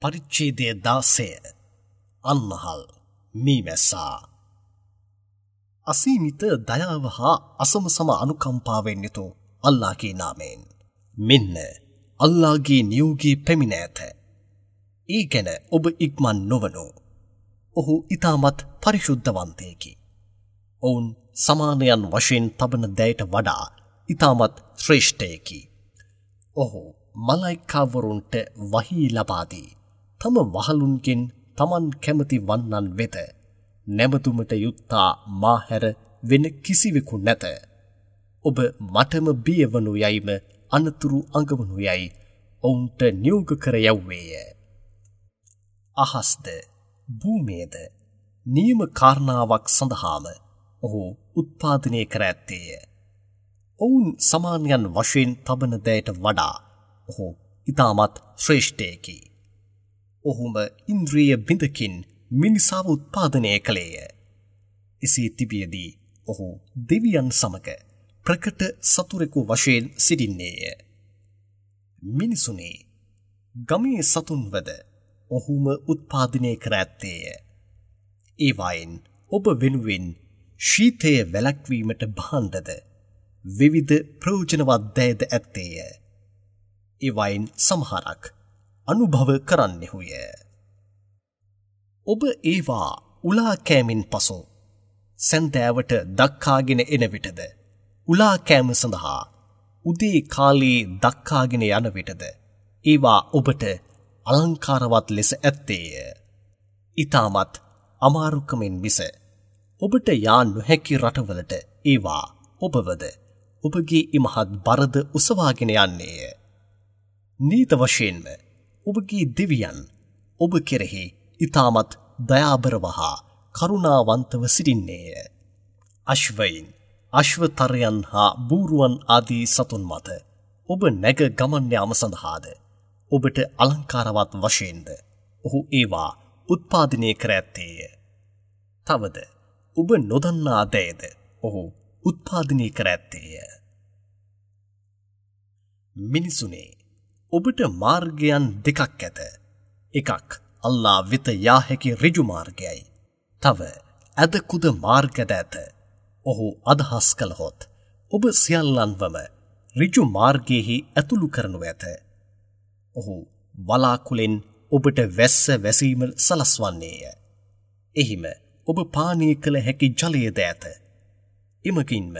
පරිච්ඡේදය 16 අන්නහල් මීමැස්සා. අසීමිත දයාව හා අසමසම අනුකම්පාවෙන් යුතු අල්ලාහගේ නාමයෙන්. මෙන්න අල්ලාහගේ නියෝගී පැමිණ ඇත. ඒ ගැන ඔබ ඉක්මන් නොවනු. ඔහු ඊටමත් පරිශුද්ධවන්තයෙකි. ඔවුන් සමානයන් වශයෙන් තබන දයට වඩා ඊටමත් ශ්‍රේෂ්ඨයෙකි. ඔහු මලයිකාවරුන්ට වහී ලබා දී තම වහලුන්ගෙන් තමන් කැමති වන්නන් වෙත නැමතුමට යුත්තා මා හැර වෙන කිසිවෙකු නැත. ඔබ මටම බියවනු යයිම අනතුරු අඟවනු යයි ඔවුන්ට නියෝග කර යැව්වේය. අහස්ද භූමියද නියම කාරණාවක් සඳහාම ඔහු උත්පාදනය කර ඇත්තේය. ඔවුන් සමානයන් වශයෙන් තබන දයට වඩා ඔහු ඉතාමත් ශ්‍රේෂ්ඨයෙකි. ඔහුම ඉන්ද්‍රිය බිඳකින් මිනිසාව උත්පාදනය කළේය. එසේ තිබියදී ඔහු දෙවියන් සමග ප්‍රකට සතුරෙකු වශයෙන් සිටින්නේය. මිනිසුනේ ගමේ සතුන්වද ඔහුම උත්පාදනය කර ඇත්තේය. ඒවායින් ඔබ වෙනුවෙන් ශීතය වැළැක්වීමට භාණ්ඩද විවිධ ප්‍රයෝජනවත් දෑද ඇත්තේය. ඒවායින් සමහරක් අනුභව කරන්නෙහුය. ඔබ ඒවා උලා කෑමෙන් පසු සැන්දෑවට දක්කාගෙන එන විටද, උලා කෑම සඳහා උදේ කාලයේ දක්කාගෙන යන විටද ඒවා ඔබට අලංකාරවත් ලෙස ඇත්තේය. ඊටමත් අමාරුකමින් මිස ඔබට යා නොහැකි රටවලට ඒවා ඔබවද ඔබගේ ඉමහත් බරද ඔසවාගෙන යන්නේය. නීත වශයෙන්ම ඔබගේ දෙවියන් ඔබ කෙරෙහි ඊටමත් දයාබරව හා කරුණාවන්තව සිටින්නේය. අශ්වයින්, අශ්වතරයන් හා බූරුවන් ආදී සතුන් මත ඔබ නැග ගමන් යාම සඳහාද ඔබට අලංකාරවත් වශයෙන්ද ඔහු ඒවා උත්පාදනය කර ඇත්තේය. තවද ඔබ නොදන්නා දෑද ඔහු උත්පාදනය කර ඇත්තේය. මිනිසුනේ, ඔබට මාර්ගයන් දෙකක් ඇත. එකක් අල්ලා වෙත යා හැකි ඍජු මාර්ගයයි. තව ඇද කුද මාර්ගද ඇත. ඔහු අදහස් කළහොත් ඔබ සියල්ලන්වම ඍජු මාර්ගයෙහි ඇතුළු කරනු ඇත. ඔහු වලාකුලෙන් ඔබට වැස්ස වැසීම සලස්වන්නේය. එහිම ඔබ පානය කළ හැකි ජලයද ඇත. එමගින්ම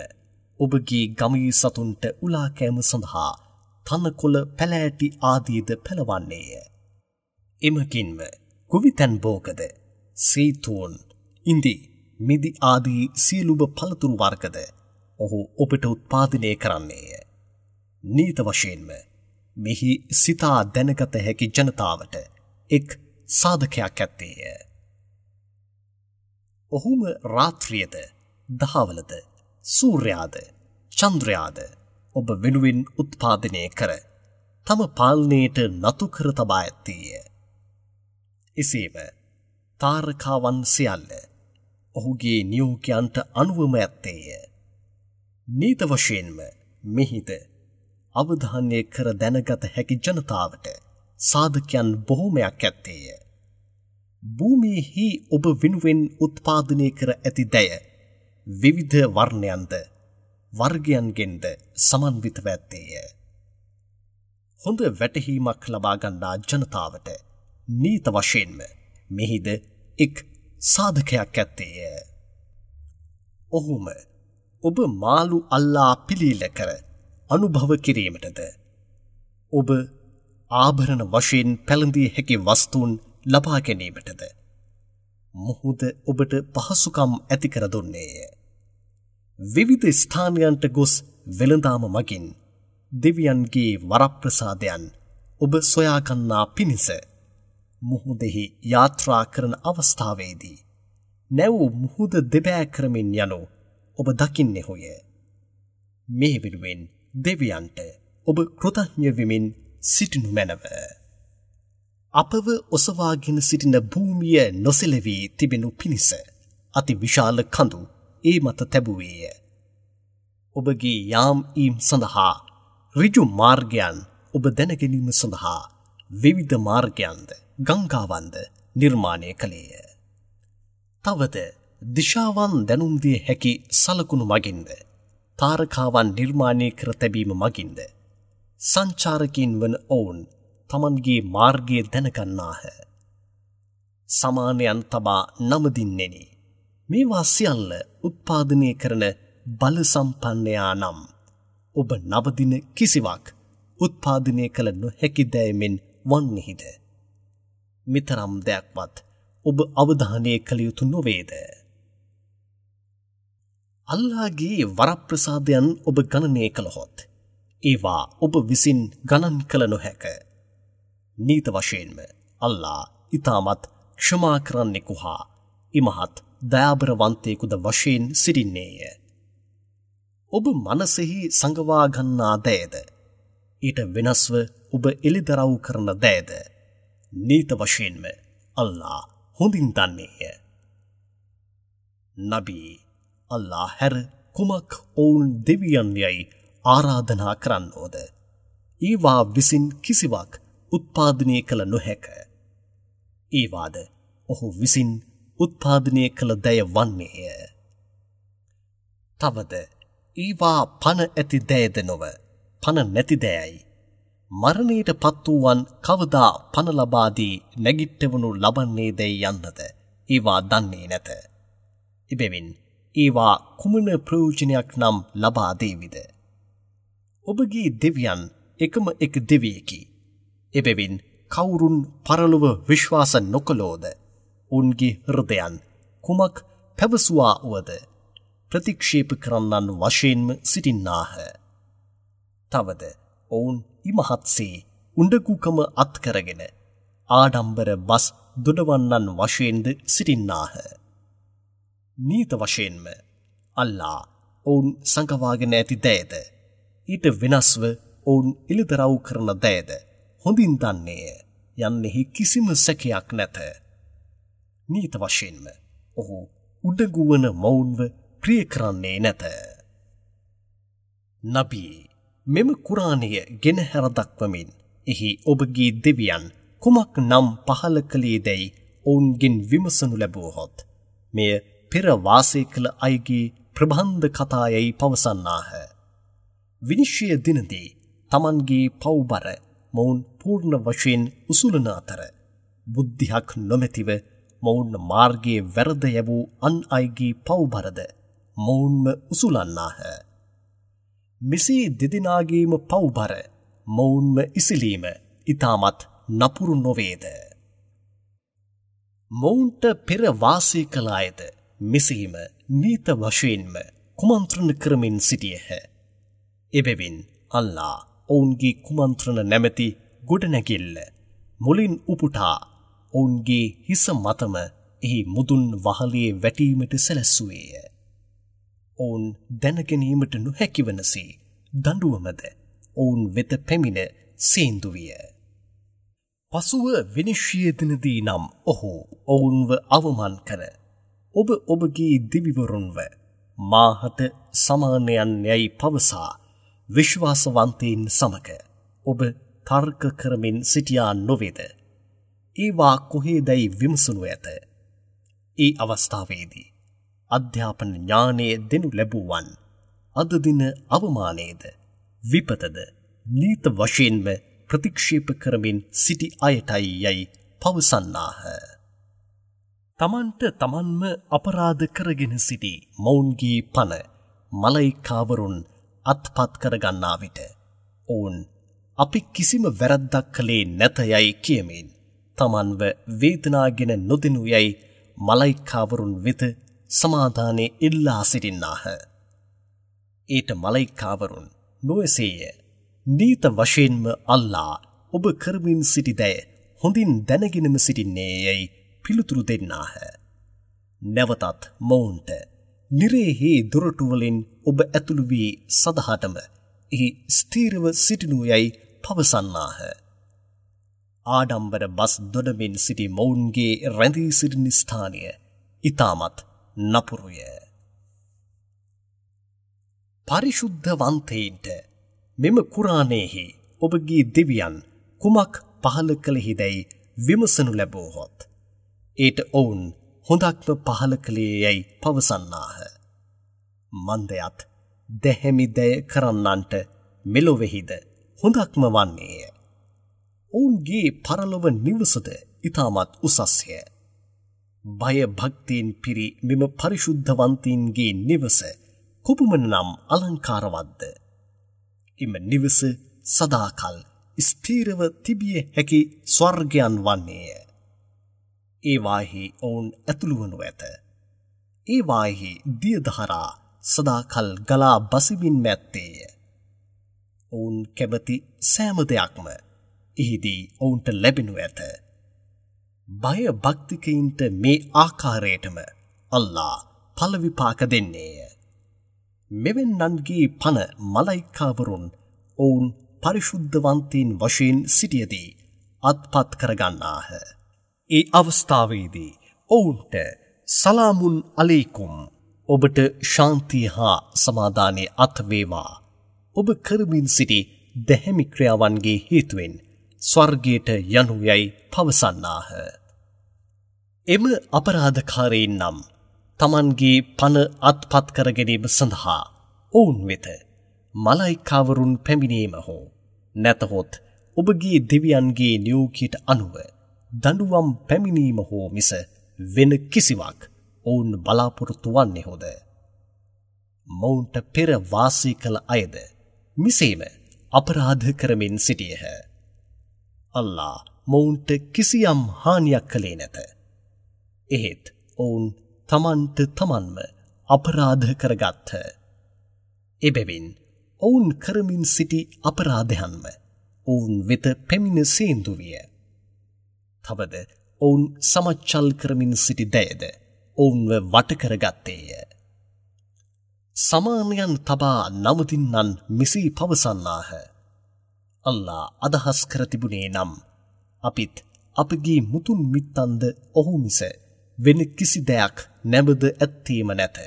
ඔබගේ ගමේ සතුන්ට උලා කෑම සඳහා තනකොළ පැලෑටි ආදීද පෙළවන්නේය. එමගින්ම ගොවිතැන් භෝගද, සීතෝන්, ඉන්දි, මිදි ආදී සියලුම පළතුරු වර්ගද ඔහු ඔබට උත්පාදනය කරන්නේය. නීත වශයෙන්ම මෙහි සිතා දැනගත හැකි ජනතාවට එක් සාධකයක් ඇත්තේය. ඔහුම රාත්‍රියද, දහවලද, සූර්යාද, චන්ද්‍රයාද ඔබ වෙනුවෙන් උත්පාදනය කර තම පාලනයට නතු කර තබා ඇත්තේය. එසේම තාරකාවන් සියල්ල ඔහුගේ නියෝගයන්ට අනුවම ඇත්තේය. නීත වශයෙන්ම මෙහිද අවධානය කර දැනගත හැකි ජනතාවට සාධකයන් බොහෝමයක් ඇත්තේය. භූමියෙහි ඔබ වෙනුවෙන් උත්පාදනය කර ඇති දෑ විවිධ වර්ණයන්ද වර්ගයන්ගෙන්ද සමන්විතව ඇත්තේය. හොඳ වැටහීමක් ලබා ගන්නා ජනතාවට නීත වශයෙන්ම මෙහිද එක් සාධකයක් ඇත්තේය. ඔහුම ඔබ මාළු අල්ලා පිළීල කර අනුභව කිරීමටද, ඔබ ආභරණ වශයෙන් පැළඳිය හැකි වස්තුන් ලබා ගැනීමටද මුහුද ඔබට පහසුකම් ඇති කර දුන්නේය. විවිධ ස්ථානයන්ට ගොස් වෙළඳාම මගින් දෙවියන්ගේ වරප්‍රසාදයන් ඔබ සොයාගන්නා පිණිස මුහුදෙහි යාත්‍රා කරන අවස්ථාවේදී නැව් මුහුද දෙබෑ කරමින් යනු ඔබ දකින්නෙහුය. මේ වෙනුවෙන් දෙවියන්ට ඔබ කෘතඥ වෙමින් සිටිනු මැනව. අපව ඔසවාගෙන සිටින භූමිය නොසෙලවී තිබෙනු පිණිස අති විශාල කඳු ඒ මත තැබුවේය. ඔබගේ යාම් ඊම් සඳහා ඍජු මාර්ගයන් ඔබ දැනගැනීම සඳහා විවිධ මාර්ගයන්ද ගංගාවන්ද නිර්මාණය කළේය. තවද දිශාවන් දැනුම් දිය හැකි සලකුණු මගින්ද තාරකාවන් නිර්මාණය කර තැබීම මගින්ද සංචාරකයින් වන ඔවුන් තමන්ගේ මාර්ගය දැනගන්නාහ. සමානයන් තබා නමදින්නෙනි. මේවා සියල්ල උත්පාදනය කරන බල සම්පන්නයා නම් ඔබ නවදින කිසිවක් උත්පාදනය කළ නොහැකි දෑමෙන් වන්නෙහිද? මෙතරම් දෙයක්වත් ඔබ අවධානය කළ යුතු නොවේද? අල්ලාහගේ වරප්‍රසාදයන් ඔබ ගණනය කළහොත් ඒවා ඔබ විසින් ගණන් කළ නොහැක. නීත වශයෙන්ම අල්ලාහ් ඉතාමත් ක්ෂමා කරන්නෙකු හා ඉමහත් දයාබරවන්තයෙකුද වශයෙන් සිටින්නේය. ඔබ මනසෙහි සඟවා ගන්නා දෑද ඊට වෙනස්ව ඔබ එළිදරව් කරන දෑද නීත වශයෙන්ම අල්ලාහ් හොඳින් දන්නේය. නබී අල්ලාහ් හැර කුමක් ඔවුන් දෙවියන් යයි ආරාධනා කරන්නෝද? ඒවා විසින් කිසිවක් උත්පාදනය කළ නොහැක. ඒවාද ඔහු විසින් උත්පාදනය කළ දය වන්නේය. තවද ඒවා පණ ඇති දෑද නොව පණ නැති දෑයි. මරණයට පත් වූවන් කවදා පණ ලබා දී නැගිට්ටවනු ලබන්නේ දැයි යන්නද ඒවා දන්නේ නැත. එබැවින් ඒවා කුමන ප්‍රයෝජනයක් නම් ලබා දේවිද? ඔබගේ දෙවියන් එකම එක දෙවියෙකි. එබැවින් කවුරුන් පරලොව විශ්වාස නොකළෝද ඔවුන්ගේ හෘදයන් කුමක් පැවසුවා වුවද ප්‍රතික්ෂේප කරන්නන් වශයෙන්ම සිටින්නාහ. තවද ඔවුන් ඉමහත්සේ උඬගුකම අත්කරගෙන ආඩම්බර බස් දොඩවන්නන් වශයෙන්ද සිටින්නාහ. නීත වශයෙන්ම අල්ලා ඔවුන් සඟවාගෙන ඇති දෑද ඊට වෙනස්ව ඔවුන් එළිදරව් කරන දෑද හොඳින් දන්නේය යන්නෙහි කිසිම සැකයක් නැත. නීත වශයෙන්ම ඔහු උඩඟු වන මොවුන්ව ප්‍රිය කරන්නේ නැත. නබී මෙම කුරානය ගෙනහැර දක්වමින් එහි ඔබගේ දෙවියන් කුමක් නම් පහළ කළේ දැයි ඔවුන්ගෙන් විමසනු ලැබුවහොත් මෙය පෙර වාසය කළ අයගේ ප්‍රබන්ධ කතා යැයි පවසන්නාහ. විනිශ්චය දිනදී තමන්ගේ පව්බර මොවුන් පූර්ණ වශයෙන් උසුලන අතර බුද්ධියක් නොමැතිව මොවුන් මාර්ගයේ වැරද යැවූ අන් අයගේ පව්බරද මොවුන්ම උසුලන්නාහ. මෙසේ දෙදෙනාගේම පව්බර මොවුන්ම ඉසිලීම ඉතාමත් නපුරු නොවේද? මොවුන්ට පෙර වාසය කළ අයද මෙසේම නීත වශයෙන්ම කුමන්ත්‍රණ කරමින් සිටියහ. එබැවින් අල්ලා ඔවුන්ගේ කුමන්ත්‍රණ නැමැති ගොඩනැගිල්ල මුලින් උපුටා ඔවුන්ගේ හිස මතම එහි මුදුන් වහලේ වැටීමට සැලැස්සුවේය. ඔවුන් දැනගැනීමට නොහැකි වනසේ දඬුවමද ඔවුන් වෙත පැමිණ සේන්දු විය. පසුව විනිශ්චය දිනදී නම් ඔහු ඔවුන්ව අවමන් කර ඔබ ඔබගේ දෙවිවරුන්ව මාහට සමානයන් යැයි පවසා විශ්වාසවන්තයින් සමග ඔබ තර්ක කරමින් සිටියා නොවේද? ඒවා කොහේදැයි විමසනු ඇත. ඒ අවස්ථාවේදී අධ්‍යාපන ඥානය දෙනු ලැබුවන් අද දින අවමානයේද විපතද නීත වශයෙන්ම ප්‍රතික්ෂේප කරමින් සිටි අයටයි යැයි පවසන්නාහ. තමන්ට තමන්ම අපරාධ කරගෙන සිටි මොවුන්ගේ පණ මලයිකාවරුන් අත්පත් කරගන්නා විට ඔවුන් අපි කිසිම වැරැද්දක් කළේ නැත යැයි කියමින් තමන්ව වේදනාගෙන නොදෙනු යැයි මලයිකාවරුන් වෙත සමාදානය ඉල්ලා සිටින්නාහ. ඊට මලයිකාවරුන් නොඑසේය. නීත වශයෙන්ම අල්ලා ඔබ කරමින් සිටි දෑ හොඳින් දැනගෙනම සිටින්නේ යැයි පිළිතුරු දෙන්නාහ. නැවතත් මොවුන්ට නිරේහි දොරටු වලින් ඔබ ඇතුළු වී සදහටම එහි ස්ථීරව සිටිනු යැයි පවසන්නාහ. ආඩම්බර බස් දොඩමින් සිටි මොවුන්ගේ රැඳී සිටින ස්ථානය ඉතාමත් නපුරුය. පරිශුද්ධවන්තයින්ට මෙම කුරානයෙහි ඔබගේ දෙවියන් කුමක් පහළ කළෙහිදැයි විමසනු ලැබුවහොත් ඊට ඔවුන් හොඳක්ම පහළ කළේ යැයි පවසන්නාහ. මන්දයත් දැහැමි දය කරන්නන්ට මෙලොවෙහිද හොඳක්ම වන්නේය. ඔවුන්ගේ පරලොව නිවසද ඉතාමත් උසස්ය. බය භක්තියෙන් පිරි මෙම පරිශුද්ධවන්තීන්ගේ නිවස කොපමණ නම් අලංකාරවත්ද? එම නිවස සදාකල් ස්ථිරව තිබිය හැකි ස්වර්ගයන් වන්නේය. ඒවාෙහි ඔවුන් ඇතුළු වනු ඇත. ඒවාෙහි දියධාරා සදාකල් ගලා බසිමින් ඇත්තේය. ඔවුන් කැමති සෑම දෙයක්ම එහිදී ඔවුන්ට ලැබෙනු ඇත. බය භක්තිකයින්ට මේ ආකාරයටම අල්ලා ඵල විපාක දෙන්නේය. මෙවැන්නන්ගේ පණ මලයිකාවරුන් ඔවුන් පරිශුද්ධවන්තීන් වශයෙන් සිටියදී අත්පත් කරගන්නාහ. ඒ අවස්ථාවේදී ඔවුන්ට සලාමුන් අලයිකුම්, ඔබට ශාන්තිය හා සමාදානය අත් වේවා. ඔබ කරමින් සිටි දැහැමි ක්‍රියාවන්ගේ හේතුවෙන් ස්වර්ගයට යනු යයි පවසන්නාහ. එම අපරාධකාරයින් නම් තමන්ගේ පණ අත්පත් කර ගැනීම සඳහා ඔවුන් වෙත මලයිකාවරුන් පැමිණීම හෝ නැතහොත් ඔබගේ දෙවියන්ගේ නියෝගයට අනුව දඬුවම් පැමිණීම හෝ මිස වෙන කිසිවක් ඔවුන් බලාපොරොත්තු වන්නේහොද? මොවුන්ට පෙර වාසය කළ අයද මෙසේම අපරාධ කරමින් සිටියහ. අල්ලා මොවුන්ට කිසියම් හානියක් කළේ නැත. එහෙත් ඔවුන් තමන්ට තමන්ම අපරාධ කරගත්හ. එබැවින් ඔවුන් කරමින් සිටි අපරාධයන්ම ඔවුන් වෙත පැමිණ සේන්දු විය. තවද ඔවුන් සමච්චල් කරමින් සිටි දයද ඔවුන්ව වට කරගත්තේය. සමානයන් තබා නවතින්නන් මෙසේ පවසන්නාහ. අල්ලා අදහස් කර තිබුණේ නම් අපිත් අපගේ මුතුන් මිත්තන්ද ඔහු මිස වෙන කිසි දෙයක් නැමද ඇත්තේම නැත.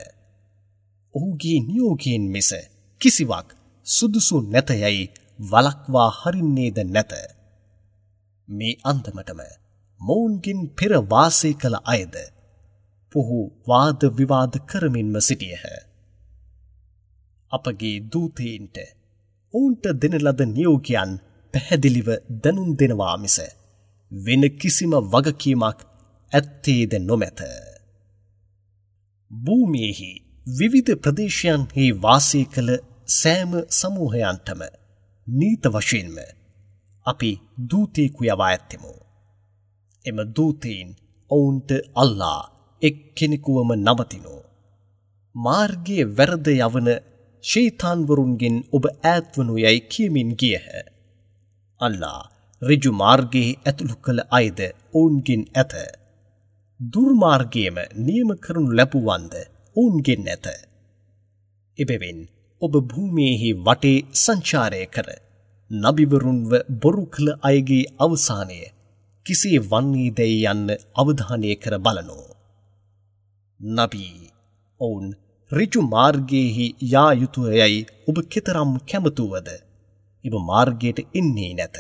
ඔහුගේ නියෝගයෙන් මිස කිසිවක් සුදුසු නැත යයි වළක්වා හරින්නේද නැත. මේ අන්දමටම මොවුන්ගෙන් පෙර වාසය කළ අයද පොහු වාද විවාද කරමින්ම සිටියහ. අපගේ දූතයින්ට ඔවුන්ට දෙන ලද නියෝගයන් පැහැදිලිව දැනුම් දෙනවා මිස වෙන කිසිම වගකීමක් ඇත්තේද නොමැත. භූමියෙහි විවිධ ප්‍රදේශයන්හි වාසය කළ සෑම සමූහයන්ටම නීත වශයෙන්ම අපි දූතයෙකු යවා ඇත්තෙමු. එම දූතයින් ඔවුන්ට අල්ලා එක් කෙනෙකුවම නමතිනු. මාර්ගයේ වැරද යවන ෂයිතාන්වරුන්ගෙන් ඔබ ඈත්වනු යයි කියමින් ගියහ. අල්ලා ඍජු මාර්ගයේ ඇතුළු කළ අයද ඔවුන්ගෙන් ඇත. දුර්මාර්ගයේම නියම කරනු ලැබුවන්ද ඔවුන්ගෙන් ඇත. එබැවින් ඔබ භූමියේහි වටේ සංචාරය කර නබිවරුන්ව බොරු කළ අයගේ අවසානය කෙසේ වන්නේදැයි යන්න අවධානය කර බලනු. නබී ඔවුන් ඍජු මාර්ගයේහි යා යුතුය යයි ඔබ කෙතරම් කැමතුවද? එම මාර්ගයට එන්නේ නැත.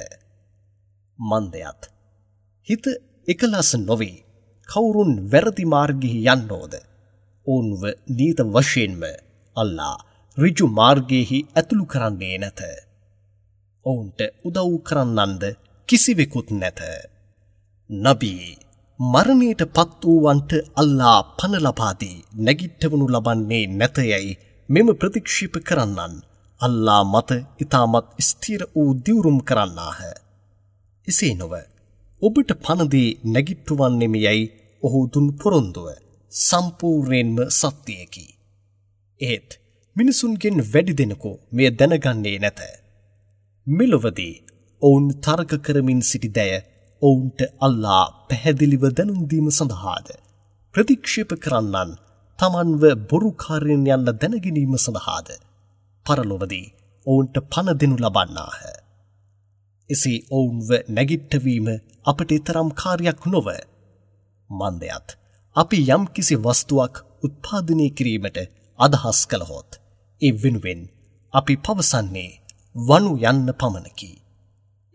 මන්දයත් හිත එකලස් නොවේ කවුරුන් වැරදි මාර්ගෙහි යන්නෝද? ඔවුන්ව නීත වශයෙන්ම අල්ලා ඍජු මාර්ගයෙහි ඇතුළු කරන්නේ නැත. ඔවුන්ට උදව් කරන්නන්ද කිසිවෙකුත් නැත. නබී මරණයට පත් වූවන්ට අල්ලා පණ ලබා දී නැගිට්ටවනු ලබන්නේ නැත යැයි මෙම ප්‍රතික්ෂේප කරන්නන් අල්ලා මත ඉතාමත් ස්ථිර වූ දිවුරුම් කරන්නාහ. එසේ නොව ඔබට පණ දී නැගිට්ටුවන්නෙමි යැයි ඔහු දුන් පොරොන්දුව සම්පූර්ණයෙන්ම සත්‍යයකි. එහෙත් මිනිසුන්ගෙන් වැඩි දෙනෙකු මෙය දැනගන්නේ නැත. මෙලොවදී ඔවුන් තර්ක කරමින් සිටි දෑ ඔවුන්ට අල්ලා පැහැදිලිව දැනුම් දීම සඳහාද ප්‍රතික්ෂේප කරන්නන් තමන්ව බොරුකාරයන් යන්න දැනගැනීම සඳහාද පරලොවදී ඔවුන්ට පණ දෙනු ලබන්නාහ. එසේ ඔවුන්ව නැගිට්ටවීම අපට තරම් කාර්යයක් නොව. මන්දයත් අපි යම්කිසි වස්තුවක් උත්පාදනය කිරීමට අදහස් කළහොත් ඒ වෙනුවෙන් අපි පවසන්නේ වනු යන්න පමණකි.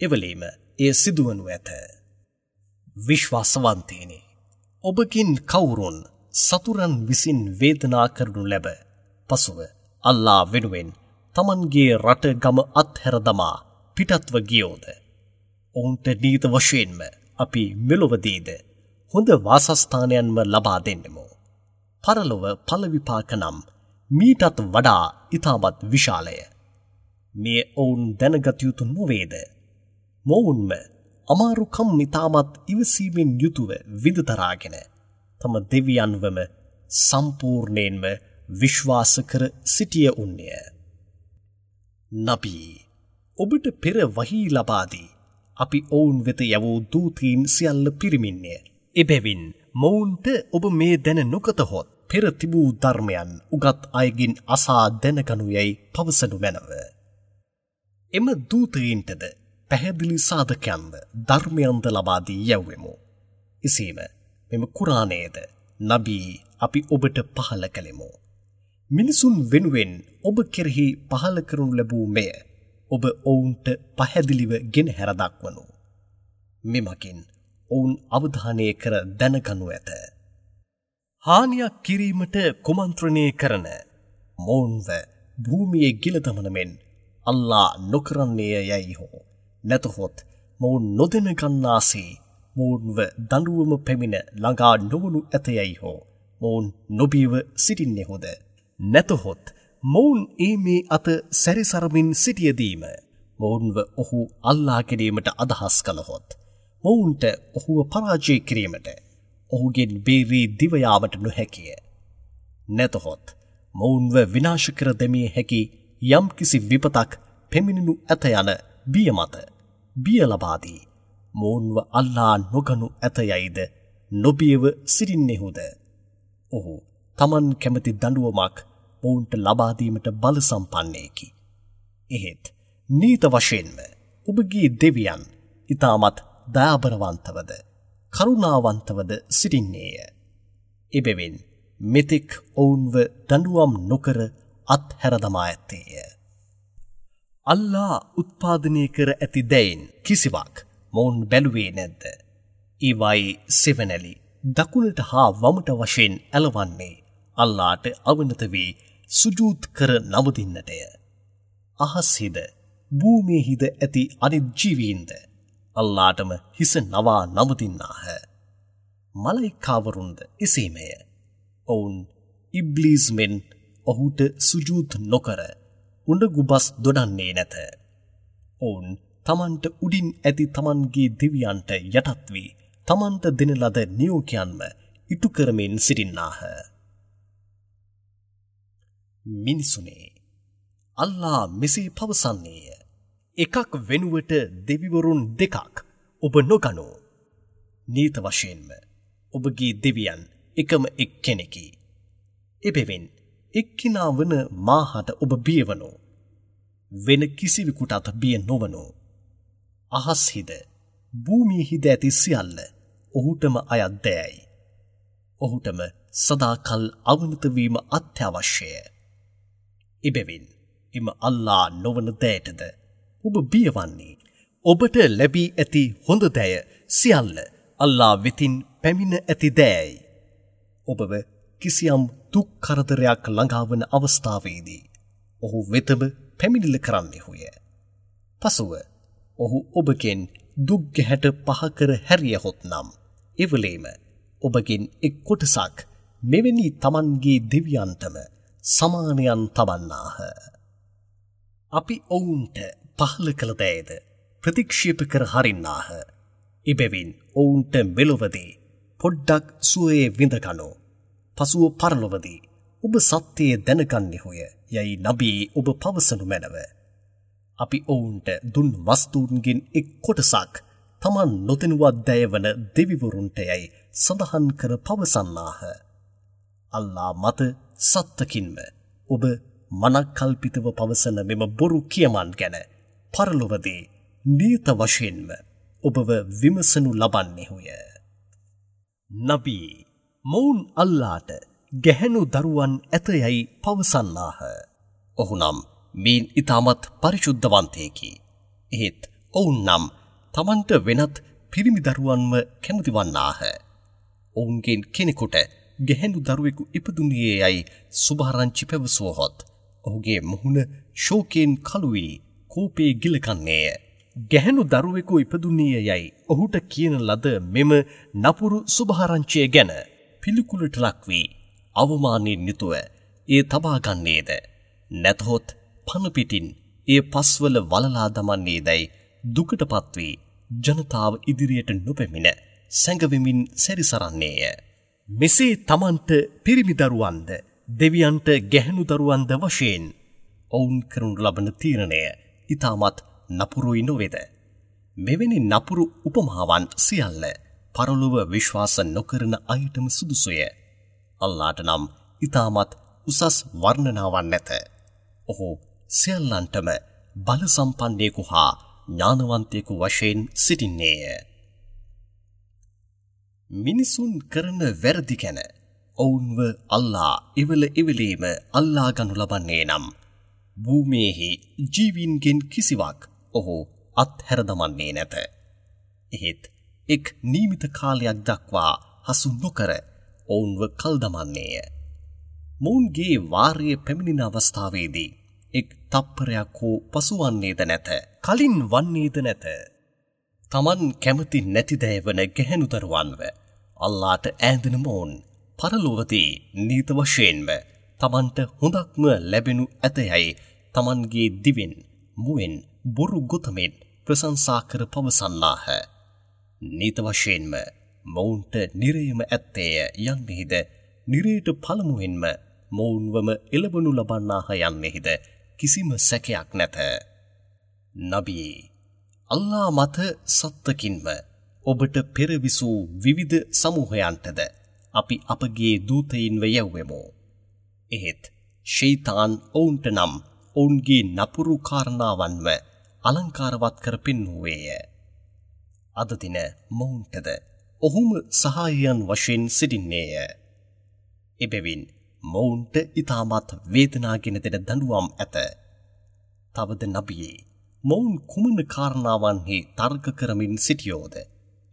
එවලේම එය සිදුවනු ඇත. විශ්වාසවන්තයිනි, ඔබකින් කවුරුන් සතුරන් විසින් වේදනා කරනු ලැබ පසුව අල්ලා වෙනුවෙන් තමන්ගේ රට ගම අත්හැර දමා පිටත්ව ගියෝද, ඔවුන්ට නීත වශයෙන්ම අපි මෙලොවදීද හොඳ වාසස්ථානයන්ම ලබා දෙන්නෙමු. පරලොව ඵල විපාක නම් මීටත් වඩා ඉතාමත් විශාලය. මේ ඔවුන් දැනගත යුතු නොවේද? මොවුන්ම අමාරුකම් ඉතාමත් ඉවසීමෙන් යුතුව විඳ දරාගෙන තම දෙවියන්වම සම්පූර්ණයෙන්ම විශ්වාස කර සිටිය උන්නේය. නබී, ඔබට පෙර වහී ලබා දී අපි ඔවුන් වෙත යවූ දූතීන් සියල්ල පිරිමින්ය. එබැවින් මොවුන්ට ඔබ මේ දැන නොගතහොත් පෙර තිබූ ධර්මයන් උගත් අයගෙන් අසා දැනගනු යැයි පවසනු මැනව. එම දූතයින්ටද පැහැදිලි සාධකයන්ද ධර්මයන්ද ලබා දී යැව්වෙමු. එසේම මෙම කුරානයද නබී අපි ඔබට පහළ කළෙමු. මිනිසුන් වෙනුවෙන් ඔබ කෙරෙහි පහළ කරනු ලැබූ මෙය ඔබ ඔවුන්ට පැහැදිලිව ගෙන හැර දක්වනු. මෙමගින් ඔවුන් අවධානය කර දැනගනු ඇත. හානියක් කිරීමට කුමන්ත්‍රණය කරන මොවුන්ව භූමියේ ගිල දමන මෙන් අල්ලා නොකරන්නේය යැයි හෝ නැතහොත් මොවුන් නොදැන ගන්නාසේ මොවුන්ව දඬුවම පැමිණ ළඟා නොවනු ඇත යැයි හෝ මොවුන් නොබියව සිටින්නෙහුද? නැතහොත් මොවුන් ඒ මේ අත සැරිසරමින් සිටියදීම මොවුන්ව ඔහු අල්ලා ගැනීමට අදහස් කළහොත් මොවුන්ට ඔහුව පරාජය කිරීමට ඔහුගෙන් බේරී දිව යාමට නොහැකිය. නැතහොත් මොවුන්ව විනාශ කර දැමිය හැකි යම්කිසි විපතක් පැමිණෙනු ඇත යන බිය මත බිය ලබා දී මොවුන්ව අල්ලා නොගනු ඇත යයිද නොබියව සිටින්නෙහුද? ඔහු තමන් කැමති දඬුවමක් මොවුන්ට ලබා දීමට බල සම්පන්නයෙකි. එහෙත් නීත වශයෙන්ම ඔබගේ දෙවියන් ඉතාමත් දයාබරවන්තවද කරුණාවන්තවද සිටින්නේය. එබැවින් මෙතෙක් ඔවුන්ව දඬුවම් නොකර අත්හැර දමා ඇත්තේය. අල්ලා උත්පාදනය කර ඇති දැයින් කිසිවක් මොවුන් බැලුවේ නැද්ද? ඒවායේ සෙවණැලි දකුණට හා වමට වශයෙන් ඇලවන්නේ අල්ලාට අවනත වී සුජූද් කර නමදින්නටය. අහස්හිද භූමියේහිද ඇති අනිත් ජීවීන්ද අල්ලාටම හිස නවා නමදින්නාහ. මලයිකාවරුන්ද එසේමය. ඔවුන් ඉබ්ලීස් මෙන් ඔහුට සුජූද් නොකර උඬගුබස් දොඩන්නේ නැත. ඔවුන් තමන්ට උඩින් ඇති තමන්ගේ දෙවියන්ට යටත් වී තමන්ට දෙන ලද නියෝගයන්ම ඉටු කරමින් සිටින්නාහ. මිනිසුනේ, අල්ලා මෙසේ පවසන්නේය. එකක් වෙනුවට දෙවිවරුන් දෙකක් ඔබ නොගනු. නීත වශයෙන්ම ඔබගේ දෙවියන් එකම එක්කෙනෙකි. එබැවින් එක්කිනා වන මාහට ඔබ බියවනු. වෙන කිසිවෙකුටත් බිය නොවනු. අහස්හිද භූමියේහිද ඇති සියල්ල ඔහුටම අයත් දෑයි. ඔහුටම සදාකල් අවනත වීම අත්‍යවශ්‍යය. එබැවින් එම අල්ලා නොවන දෑටද ඔබ බියවන්නේ? ඔබට ලැබී ඇති හොඳ දෑය සියල්ල අල්ලා වෙතින් පැමිණ ඇති දෑයි. ඔබව කිසියම් දුක් කරදරයක් ළඟාවන අවස්ථාවේදී ඔහු වෙතම පැමිණිල්ල කරන්නෙහුය. පසුව ඔහු ඔබගෙන් දුක් ගැහැට පහ කර හැරියහොත් නම් එවලේම ඔබගෙන් එක් කොටසක් මෙවැනි තමන්ගේ දෙවියන්ටම සමානයන් තබන්නාහ. අපි ඔවුන්ට පහළ කළ දෑයද ප්‍රතික්ෂේප කර හරින්නාහ. එබැවින් ඔවුන්ට මෙලොවදී පොඩ්ඩක් සුවයේ විඳගනු. පසුව පරලොවදී ඔබ සත්‍යය දැනගන්නෙහුය යයි නබී ඔබ පවසනු මැනව. අපි ඔවුන්ට දුන් වස්තුන්ගෙන් එක් කොටසක් තමන් නොදැනුවත් දෑවන දෙවිවරුන්ට යයි සඳහන් කර පවසන්නාහ. අල්ලා මත සත්තකින්ම ඔබ මනක්කල්පිතව පවසන මෙම බොරු කියමන් ගැන පරලොවදී නියත වශයෙන්ම ඔබව විමසනු ලබන්නෙහුය. නබී, මොවුන් අල්ලාට ගැහැණු දරුවන් ඇත යයි පවසන්නාහ. ඔහු නම් මීන් ඉතාමත් පරිශුද්ධවන්තයෙකි. එහෙත් ඔවුන් නම් තමන්ට වෙනත් පිරිමි දරුවන්ව කැමති වන්නාහ. ඔවුන්ගෙන් කෙනෙකුට ගැහැණු දරුවෙකු ඉපදුණේ යයි සුභාරංචි පැවසුවහොත් ඔහුගේ මුහුණ ශෝකයෙන් කළු වී කෝපයේ ගිලකන්නේය. ගැහැණු දරුවෙකු ඉපදුණේ යයි ඔහුට කියන ලද මෙම නපුරු සුභාරංචිය ගැන පිළිකුලට ලක් වී අවමානයෙන් යුතුව එය තබා ගන්නේද, නැතහොත් පණ පිටින් එය පස්වල වලලා දමන්නේදයි දුකටපත් වී ජනතාව ඉදිරියට නොපැමිණ සැඟවෙමින් සැරිසරන්නේය. මෙසේ තමන්ට පිරිමි දරුවන්ද දෙවියන්ට ගැහැණු දරුවන්ද වශයෙන් ඔවුන් කරනු ලබන තීරණය ඉතාමත් නපුරුයි නොවේද? මෙවැනි නපුරු උපමාවන් සියල්ල පරලොව විශ්වාස නොකරන අයටම සුදුසුය. අල්ලාට නම් ඉතාමත් උසස් වර්ණනාවන් නැත. ඔහු සියල්ලන්ටම බල සම්පන්නයෙකු හා ඥානවන්තයෙකු වශයෙන් සිටින්නේය. මිනිසුන් කරන වැරදි ගැන ඔවුන්ව අල්ලා එවල එවලේම අල්ලා ගනු ලබන්නේ නම් භූමියේහි ජීවීන්ගෙන් කිසිවක් ඔහු අත්හැර දමන්නේ නැත. එහෙත් එක් නියමිත කාලයක් දක්වා හසු නොකර ඔවුන්ව කල් දමන්නේය. මොවුන්ගේ වාරය පැමිණෙන අවස්ථාවේදී එක් තප්පරයක් හෝ පසුවන්නේද නැත, කලින් වන්නේද නැත. තමන් කැමති නැති දෑ වන ගැහැණු දරුවන්ව අල්ලාට ඈඳෙන මොවුන් පරලොවදී නීත වශයෙන්ම තමන්ට හොඳක්ම ලැබෙනු ඇතයයි තමන්ගේ දිවෙන් මුවෙන් බොරු ගොතමින් ප්‍රශංසා කර පවසන්නාහ. නීත වශයෙන්ම මොවුන්ට නිරයම ඇත්තේය යන්නෙහිද, නිරයට පළමුවෙන්ම මොවුන්වම එළවනු ලබන්නාහ යන්නෙහිද කිසිම සැකයක් නැත. නබියේ, අල්ලා මත සත්තකින්ම ඔබට පෙර විසූ විවිධ සමූහයන්ටද අපි අපගේ දූතයින්ව යැව්වෙමු. එහෙත් ෂයිතාන් ඔවුන්ට නම් ඔවුන්ගේ නපුරු කාරණාවන්ව අලංකාරවත් කර පෙන්වුවේය. අද දින මොවුන්ටද ඔහුම සහායයන් වශයෙන් සිටින්නේය. එබැවින් මොවුන්ට ඉතාමත් වේදනාගෙන දෙන දඬුවම් ඇත. තවද නබියේ, මොවුන් කුමන කාරණාවන්හි තර්ක කරමින් සිටියෝද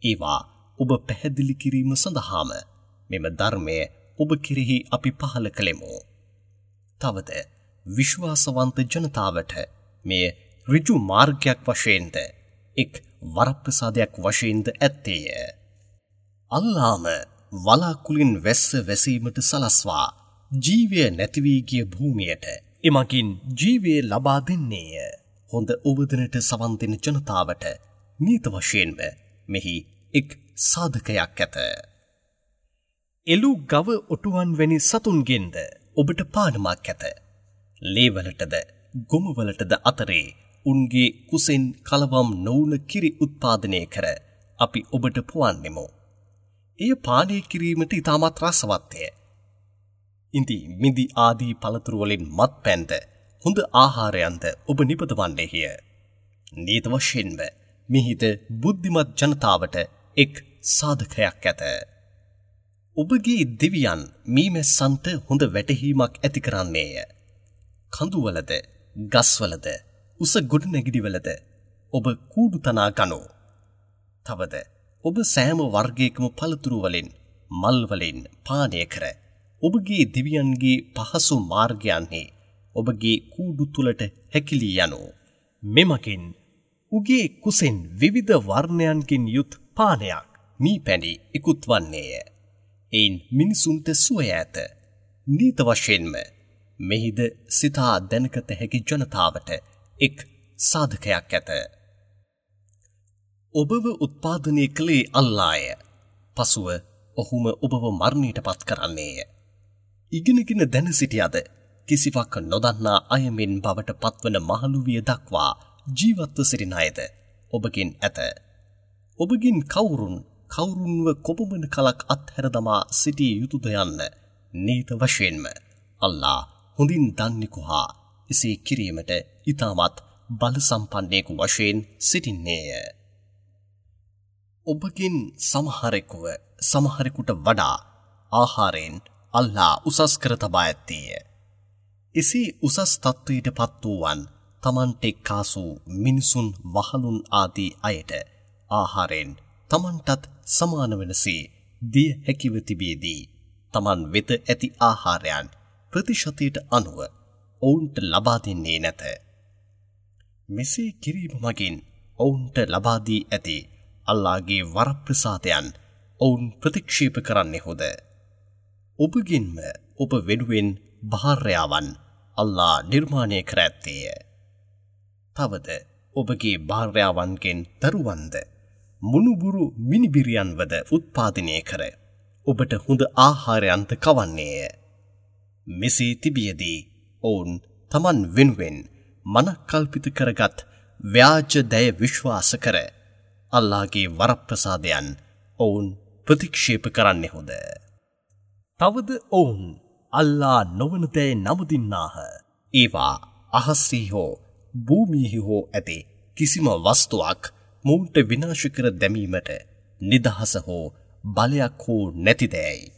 ඒවා ඔබ පැහැදිලි කිරීම සඳහාම මෙම ධර්මය ඔබ කෙරෙහි අපි පහළ කළෙමු. තවද විශ්වාසවන්ත ජනතාවට මෙය ඍජු මාර්ගයක් වශයෙන්ද එක් වරප්‍රසාදයක් වශයෙන්ද ඇත්තේය. අල්ලාම වලාකුලින් වැස්ස වැසීමට සලස්වා ජීවය නැති වී ගිය භූමියට එමගින් ජීවය ලබා දෙන්නේය. හොඳ ඔබදනට සවන් දෙන ජනතාවට නීත වශයෙන්ම මෙහි එක් සාධකයක් ඇත. එළු ගව ඔටුවන් වැනි සතුන්ගෙන්ද ඔබට පානමක් ඇත. ලේවලටද ගොමවලටද අතරේ උන්ගේ කුසෙන් කලවම් නොවුන කිරි උත්පාදනය කර අපි ඔබට පොවන්නෙමු. එය පානය කිරීමට ඉතාමත් රසවත්ය. ඉඳි මිදි ආදී පළතුරු වලින් මත්පැන්ද හොඳ ආහාරයන්ද ඔබ නිපදවන්නේය. නීත වශයෙන්ම මිහිද බුද්ධිමත් ජනතාවට එක් සාධකයක් ඇත. ඔබගේ දෙවියන් මීමැස්සන්ට හොඳ වැටහීමක් ඇති කරන්නේය. කඳුවලද ගස්වලද උස ගොඩනැගිලිවලද ඔබ කූඩු තනා ගනෝ. තවද ඔබ සෑම වර්ගයකම පළතුරු වලින් මල් වලින් පානය කර ඔබගේ දෙවියන්ගේ පහසු මාර්ගයන්හි ඔබගේ කූඩු තුලට හැකිලී යනෝ. මෙමගින් උගේ කුසෙන් විවිධ වර්ණයන්ගෙන් යුත් පානයක් මී පැණි ඉකුත් වන්නේය. එයින් මිනිසුන්ට සුවය ඇත. නීත වශයෙන්ම මෙහිද සිතා දැනගත හැකි ජනතාවට එක් සාධකයක් ඇත. ඔබව උත්පාදනය කළේ අල්ලාය. පසුව ඔහුම ඔබව මරණයට පත් කරන්නේය. ඉගෙනගෙන දැන සිටියද කිසිවක් නොදන්නා අයමෙන් බවට පත්වන මහලු විය දක්වා ජීවත්ව සිටින අයද ඔබගෙන් ඇත. ඔබගෙන් කවුරුන්ව කොපමණ කලක් අත්හැර දමා සිටිය යුතුද යන්න නීත වශයෙන්ම අල්ලා හොඳින් දන්නෙකු හා එසේ කිරීමට ඉතාමත් බල සම්පන්නෙකු වශයෙන් සිටින්නේය. ඔබගෙන් සමහරෙකුව සමහරෙකුට වඩා ආහාරයෙන් අල්ලා උසස් කර තබා ඇත්තේය. එසේ උසස් තත්ත්වයට පත් වූවන් තමන්ට එක්කාසු මිනිසුන් වහලුන් ආදී අයට ආහාරයෙන් තමන්ටත් සමාන වනසේ දිය හැකිව තිබියදී තමන් වෙත ඇති ආහාරයන් ප්‍රතිශතයට අනුව ඔවුන්ට ලබා දෙන්නේ නැත. මෙසේ කිරීම මගින් ඔවුන්ට ලබා දී ඇති අල්ලාහගේ වරප්‍රසාදයන් ඔවුන් ප්‍රතික්ෂේප කරන්නෙහුද? ඔබගෙන්ම ඔබ වෙනුවෙන් භාර්යාවන් අල්ලාහ් නිර්මාණය කර ඇත්තේය. තවද ඔබගේ භාර්යාවන්ගෙන් දරුවන්ද මුණුබුරු මිනිබිරියන්වද උත්පාදනය කර ඔබට හොඳ ආහාරයන්ද කවන්නේය. මෙසේ තිබියදී ඔවුන් තමන් වෙනුවෙන් මනක්කල්පිත කරගත් ව්‍යාජ දය විශ්වාස කර අල්ලාහගේ වරප්‍රසාදයන් ඔවුන් ප්‍රතික්ෂේප කරන්නෙහුද? තවද ඔවුන් අල්ලා නොවන දෑ නමුදින්නාහ. ඒවා අහස්හි හෝ භූමියෙහි හෝ ඇති කිසිම වස්තුවක් මොවුන්ට විනාශ කර දැමීමට නිදහස හෝ බලයක් හෝ නැති දෑයි.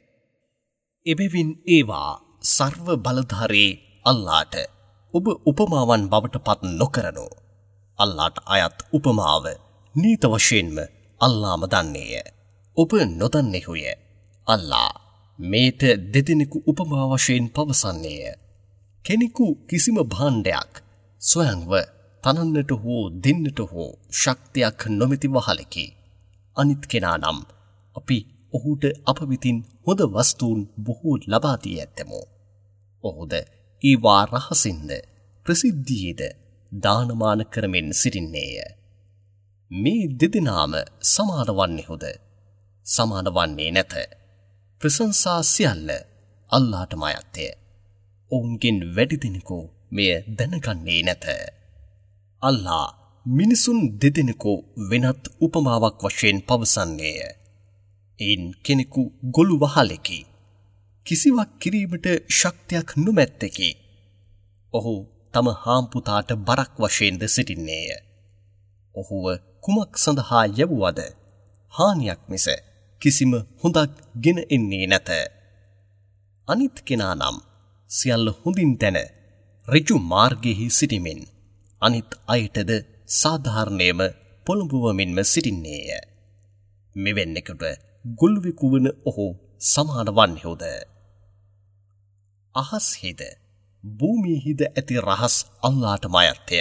එබැවින් ඒවා සර්ව බලධාරී අල්ලාට ඔබ උපමාවන් බවට පත් නොකරනු. අල්ලාට අයත් උපමාව නීත වශයෙන්ම අල්ලාම දන්නේය. ඔබ නොදන්නෙහුය. අල්ලා මේට දෙදෙනෙකු උපමා වශයෙන් පවසන්නේය. කෙනෙකු කිසිම භාණ්ඩයක් ස්වයංව තනන්නට හෝ දෙන්නට හෝ ශක්තියක් නොමැති වහලෙකි. අනිත් කෙනා නම් අපි ඔහුට අප වෙතින් හොඳ වස්තුන් බොහෝ ලබා දී ඇත්තෙමු. ඔහුද ඒවා රහසින්ද ප්‍රසිද්ධියේද දානමාන කරමින් සිටින්නේය. මේ දෙදෙනාම සමාන වන්නේහුද? සමාන වන්නේ නැත. ප්‍රශංසා සියල්ල අල්ලාහටම අයත්ය. ඔවුන්ගෙන් වැඩි දෙනෙකු මෙය දැනගන්නේ නැත. අල්ලාහ් මිනිසුන් දෙදෙනෙකු වෙනත් උපමාවක් වශයෙන් පවසන්නේය. එයින් කෙනෙකු ගොළු වහලෙකි. කිසිවක් කිරීමට ශක්තියක් නොමැත්තෙකි. ඔහු තම හාම්පුතාට බරක් වශයෙන්ද සිටින්නේය. ඔහුව කුමක් සඳහා යැවුවද හානියක් මිස කිසිම හොඳක් ගෙන එන්නේ නැත. අනිත් කෙනා නම් සියල්ල හොඳින් දැන ඍජු මාර්ගයෙහි සිටිමින් අනිත් අයටද සාධාරණයම පොළඹවමින්ම සිටින්නේය. මෙවැන්නෙකුට ගොළුවෙකු වන ඔහු සමාන වන්නේහුද? අහස්හිද භූමියෙහිද ඇති රහස් අල්ලාහටම අයත්ය.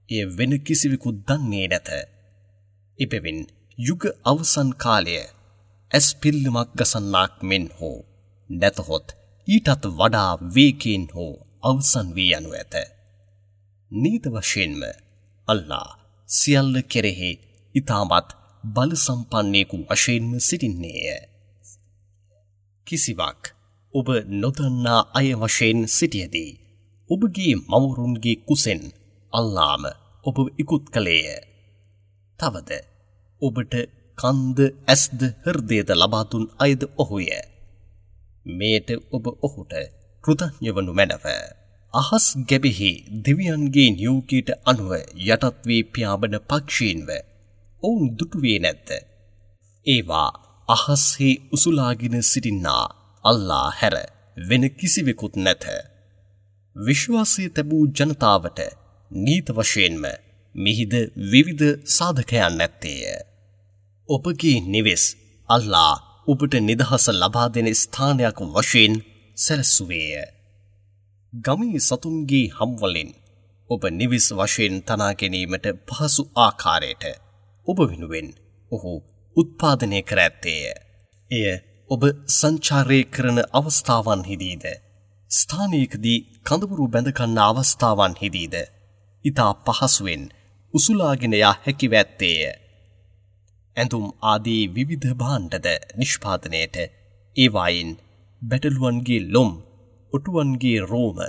එය වෙන කිසිවෙකු දන්නේ නැත. එබැවින් යුග අවසන් කාලය ඇස් පිල්ලමක් ගසන්නාක් මෙන් හෝ නැතහොත් ඊටත් වඩා වේගයෙන් හෝ අවසන් වී යනු ඇත. නීත වශයෙන්ම අල්ලාහ් සියල්ල කෙරෙහි ඉතාමත් බල සම්පන්නෙකු වශයෙන්ම සිටින්නේය. කිසිවක් ඔබ නොදන්නා අය වශයෙන් සිටියදී ඔබගේ මවුරුන්ගේ කුසෙන් අල්ලාහ්ම ඔබ ඉකුත් කළේය. තවද ඔබට කන්ද ඇස්ද හෘදයද ලබා දුන් අයද ඔහුය. මෙයට ඔබ ඔහුට කෘතඥ වනු මැනව. අහස් ගැබෙහි දෙවියන්ගේ නියෝගයට අනුව යටත් වී පියාඹන පක්ෂීන්ව ඔවුන් දුටුවේ නැද්ද? ඒවා අහස්හි උසුලාගෙන සිටින්නා අල්ලාහ් හැර වෙන කිසිවෙකුත් නැත. විශ්වාසය තැබූ ජනතාවට නීත වශයෙන්ම මිහිද විවිධ සාධකයන් නැත්තේය. ඔබගේ නිවෙස් අල්ලාහ් ඔබට නිදහස ලබා දෙන ස්ථානයක් වශයෙන් සැලසුවේය. ගමේ සතුන්ගේ හම්වලින් ඔබ නිවෙස් වශයෙන් තනා ගැනීමට පහසු ආකාරයට ඔබ වෙනුවෙන් ඔහු උත්පාදනය කර ඇත්තේය. එය ඔබ සංචාරය කරන අවස්ථාවන්හිදීද ස්ථානයකදී කඳවුරු බැඳ ගන්න අවස්ථාවන්හිදීද ඉතා පහසුවෙන් උසුලාගෙන යා හැකිව ඇත්තේය. ඇඳුම් ආදී විවිධ භාණ්ඩද නිෂ්පාදනයට ඒවායින් බැටළුවන්ගේ ලොම්, ඔටුවන්ගේ රෝම,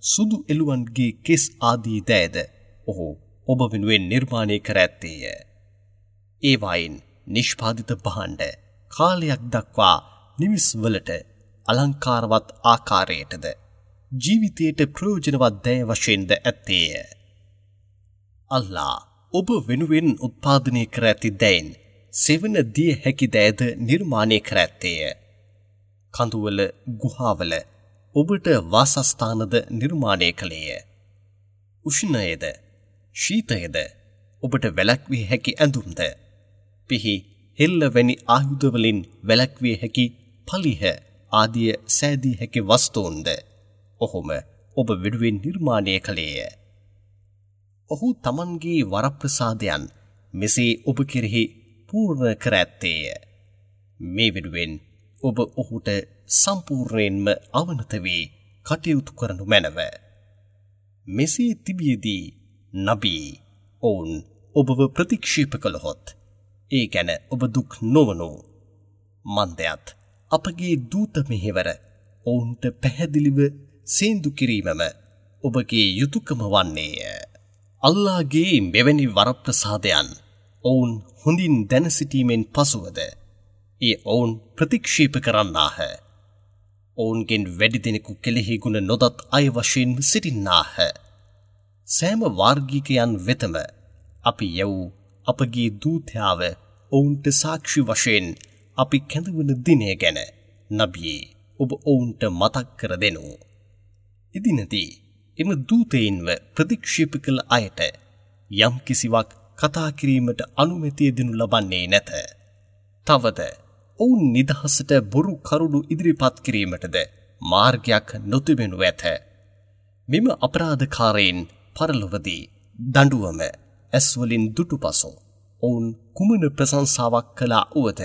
සුදු එළුවන්ගේ කෙස් ආදී දෑද ඔහු ඔබ වෙනුවෙන් නිර්මාණය කර ඇත්තේය. ඒවායින් නිෂ්පාදිත භාණ්ඩ කාලයක් දක්වා නිවෙස්වලට අලංකාරවත් ආකාරයටද ජීවිතයට ප්‍රයෝජනවත් දෑ වශයෙන්ද ඇත්තේය. අල්ලාහ් ඔබ වෙනුවෙන් උත්පාදනය කර ඇති දෑයින් සෙවණ දිය හැකි දෑද නිර්මාණය කර ඇත්තේය. කඳුවල ගුහාවල ඔබට වාසස්ථානද නිර්මාණය කළේය. උෂ්ණයද ශීතයද ඔබට වැළැක්විය හැකි ඇඳුම්ද, පිහි හෙල්ල වැනි ආයුධවලින් වැළැක්විය හැකි පලිහ ආදිය සෑදිය හැකි වස්තූන්ද ඔහුම ඔබ වෙනුවෙන් නිර්මාණය කළේය. ඔහු තමන්ගේ වරප්‍රසාදයන් මෙසේ ඔබ කෙරෙහි පූර්ණ කර ඇත්තේය. මේ වෙනුවෙන් ඔබ ඔහුට සම්පූර්ණයෙන්ම අවනත වී කටයුතු කරනු මැනව. මෙසේ තිබියදී නබී ඔවුන් ඔබව ප්‍රතික්ෂේප කළහොත් ඒ ගැන ඔබ දුක් නොවනු. මන්දයත් අපගේ දූත මෙහෙවර ඔවුන්ට පැහැදිලිව සේන්දු කිරීමම ඔබගේ යුතුකම වන්නේය. අල්ලාහගේ මෙවැනි වරප්‍රසාදයන් ඔවුන් හොඳින් දැන සිටීමෙන් පසුවද ඒ ඔවුන් ප්‍රතික්ෂේප කරන්නාහ. ඔවුන්ගෙන් වැඩි දෙනෙකු කෙලෙහි ගුණ නොදත් අය වශයෙන් සිටින්නාහ. සෑම වාර්ගිකයන් වෙතම අපි යවූ අපගේ දූතයාව ඔවුන්ට සාක්ෂි වශයෙන් අපි කැඳවන දිනය ගැන නබියේ ඔබ ඔවුන්ට මතක් කර දෙනු. එදිනදී එම දූතයින්ව ප්‍රතික්ෂේප කළ අයට යම් කිසිවක් කතා කිරීමට අනුමැතිය දෙනු ලබන්නේ නැත. තවද ඔවුන් නිදහසට බොරු කරුණු ඉදිරිපත් කිරීමටද මාර්ගයක් නොතිබෙනු ඇත. මෙම අපරාධකාරයින් පරලොවදී දඬුවම ඇස්වලින් දුටු පසු ඔවුන් කුමන ප්‍රශංසාවක් කළා වුවද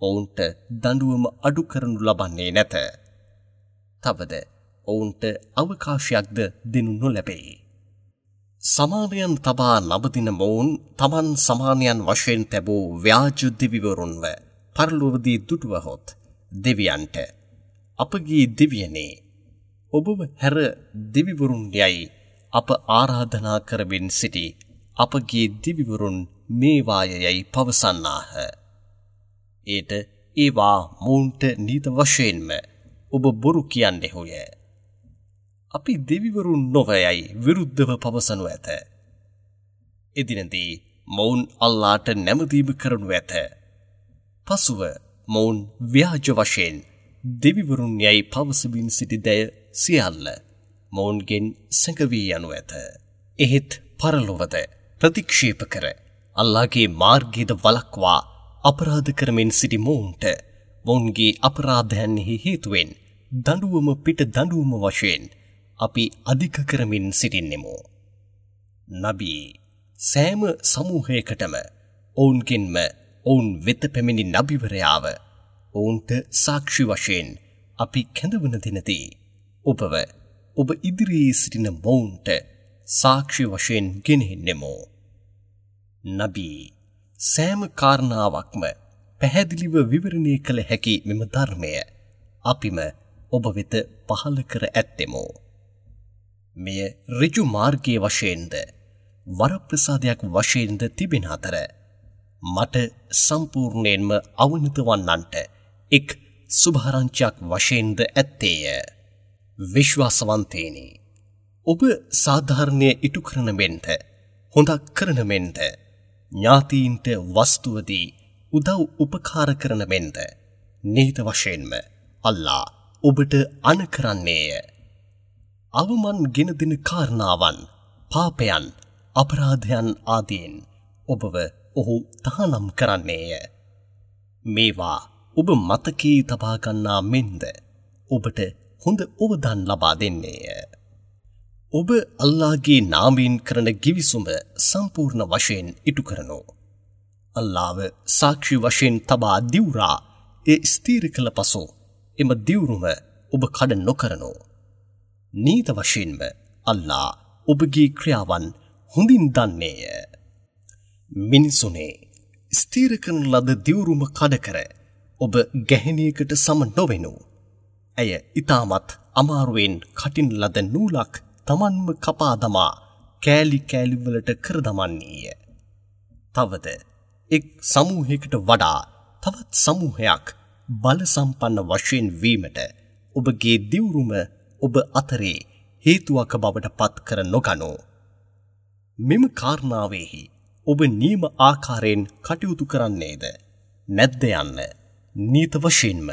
ඔවුන්ට දඬුවම අඩු කරනු ලබන්නේ නැත. තවද ඔවුන්ට අවකාශයක්ද දෙනු නොලැබේ. සමානයන් තබා නබදින මොවුන් තමන් සමානයන් වශයෙන් තැබූ ව්‍යාජ දෙවිවරුන්ව පරලොවදී දුටුවහොත් දෙවියන්ට අපගේ දෙවියනේ ඔබව හැර දෙවිවරුන් යයි අප ආරාධනා කරමින් සිටි අපගේ දෙවිවරුන් මේවාය යයි පවසන්නාහ. ඒට ඒවා මොවුන්ට නීත වශයෙන්ම ඔබ බොරු කියන්නෙහුය. අපි දෙවිවරුන් නොව යයි විරුද්ධව පවසනු ඇත. එදිනදී මොවුන් අල්ලාට නැමදීම කරනු ඇත. පසුව මොවුන් ව්‍යාජ වශයෙන් දෙවිවරුන් යයි පවසමින් සිටි දය සියල්ල මොවුන්ගෙන් සැඟවී යනු ඇත. එහෙත් පරලොවද ප්‍රතික්ෂේප කර අල්ලාහගේ මාර්ගයද වළක්වා අපරාධ කරමින් සිටි මොවුන්ට මොවුන්ගේ අපරාධයන්හි හේතුවෙන් දඬුවම පිට දඬුවම වශයෙන් අපි අධික කරමින් සිටින්නෙමු. නබී සෑම සමූහයකටම ඔවුන්ගෙන්ම ඔවුන් වෙත පැමිණි නබිවරයාව ඔවුන්ට සාක්ෂි වශයෙන් අපි කැඳවන දිනදී ඔබව ඔබ ඉදිරියේ සිටින මොවුන්ට සාක්ෂි වශයෙන් ගෙනෙන්නෙමු. නබී සෑම කාරණාවක්ම පැහැදිලිව විවරණය කළ හැකි මෙම ධර්මය අපිම ඔබ වෙත පහළ කර ඇත්තෙමු. මෙය ඍජු මාර්ගයේ වශයෙන්ද වරප්‍රසාදයක් වශයෙන්ද තිබෙන අතර මට සම්පූර්ණයෙන්ම අවනත වන්නන්ට එක් සුභාරංචියක් වශයෙන්ද ඇත්තේය. විශ්වාසවන්තයනි, ඔබ සාධාරණය ඉටු කරන මෙන්ද හොඳක් කරන මෙන්ද ඥාතීන්ට වස්තුවදී උදව් උපකාර කරන මෙන්ද නිහිත වශයෙන්ම අල්ලා ඔබට අන කරන්නේය. අවමන් ගෙන දෙන කාරණාවන්, පාපයන්, අපරාධයන් ආදීන් ඔබව ඔහු තහනම් කරන්නේය. මේවා ඔබ මතකයේ තබා ගන්නා මෙන්ද ඔබට හොඳ ඔවදන් ලබා දෙන්නේය. ඔබ අල්ලාහගේ නාමයෙන් කරන ගිවිසුම සම්පූර්ණ වශයෙන් ඉටු කරනු. අල්ලාහව සාක්ෂි වශයෙන් තබා දිවුරා ඒ ස්ථිර කළ පසු එම දිවුරුම ඔබ කඩ නොකරනු. නීත වශයෙන්ම අල්ලාහ් ඔබගේ ක්‍රියාවන් හොඳින් දන්නේය. මිනිසුනේ, ස්ථිර කරන ලද දිවුරුම කඩ කර ඔබ ගැහැණියකට සම නොවෙනු. ඇය ඊටමත් අමාරුවෙන් කටින් ලද නූලක් තමන්ම කපා දමා කෑලි කෑලි වලට කර දමන්නේය. තවද එක් සමූහයකට වඩා තවත් සමූහයක් බල සම්පන්න වශයෙන් වීමට ඔබගේ දිවුරුම ඔබ අතරේ හේතුවක් බවට පත් කර නොගනු. මෙම කාරණාවෙහි ඔබ නියම ආකාරයෙන් කටයුතු කරන්නේද නැද්ද යන්න නීත වශයෙන්ම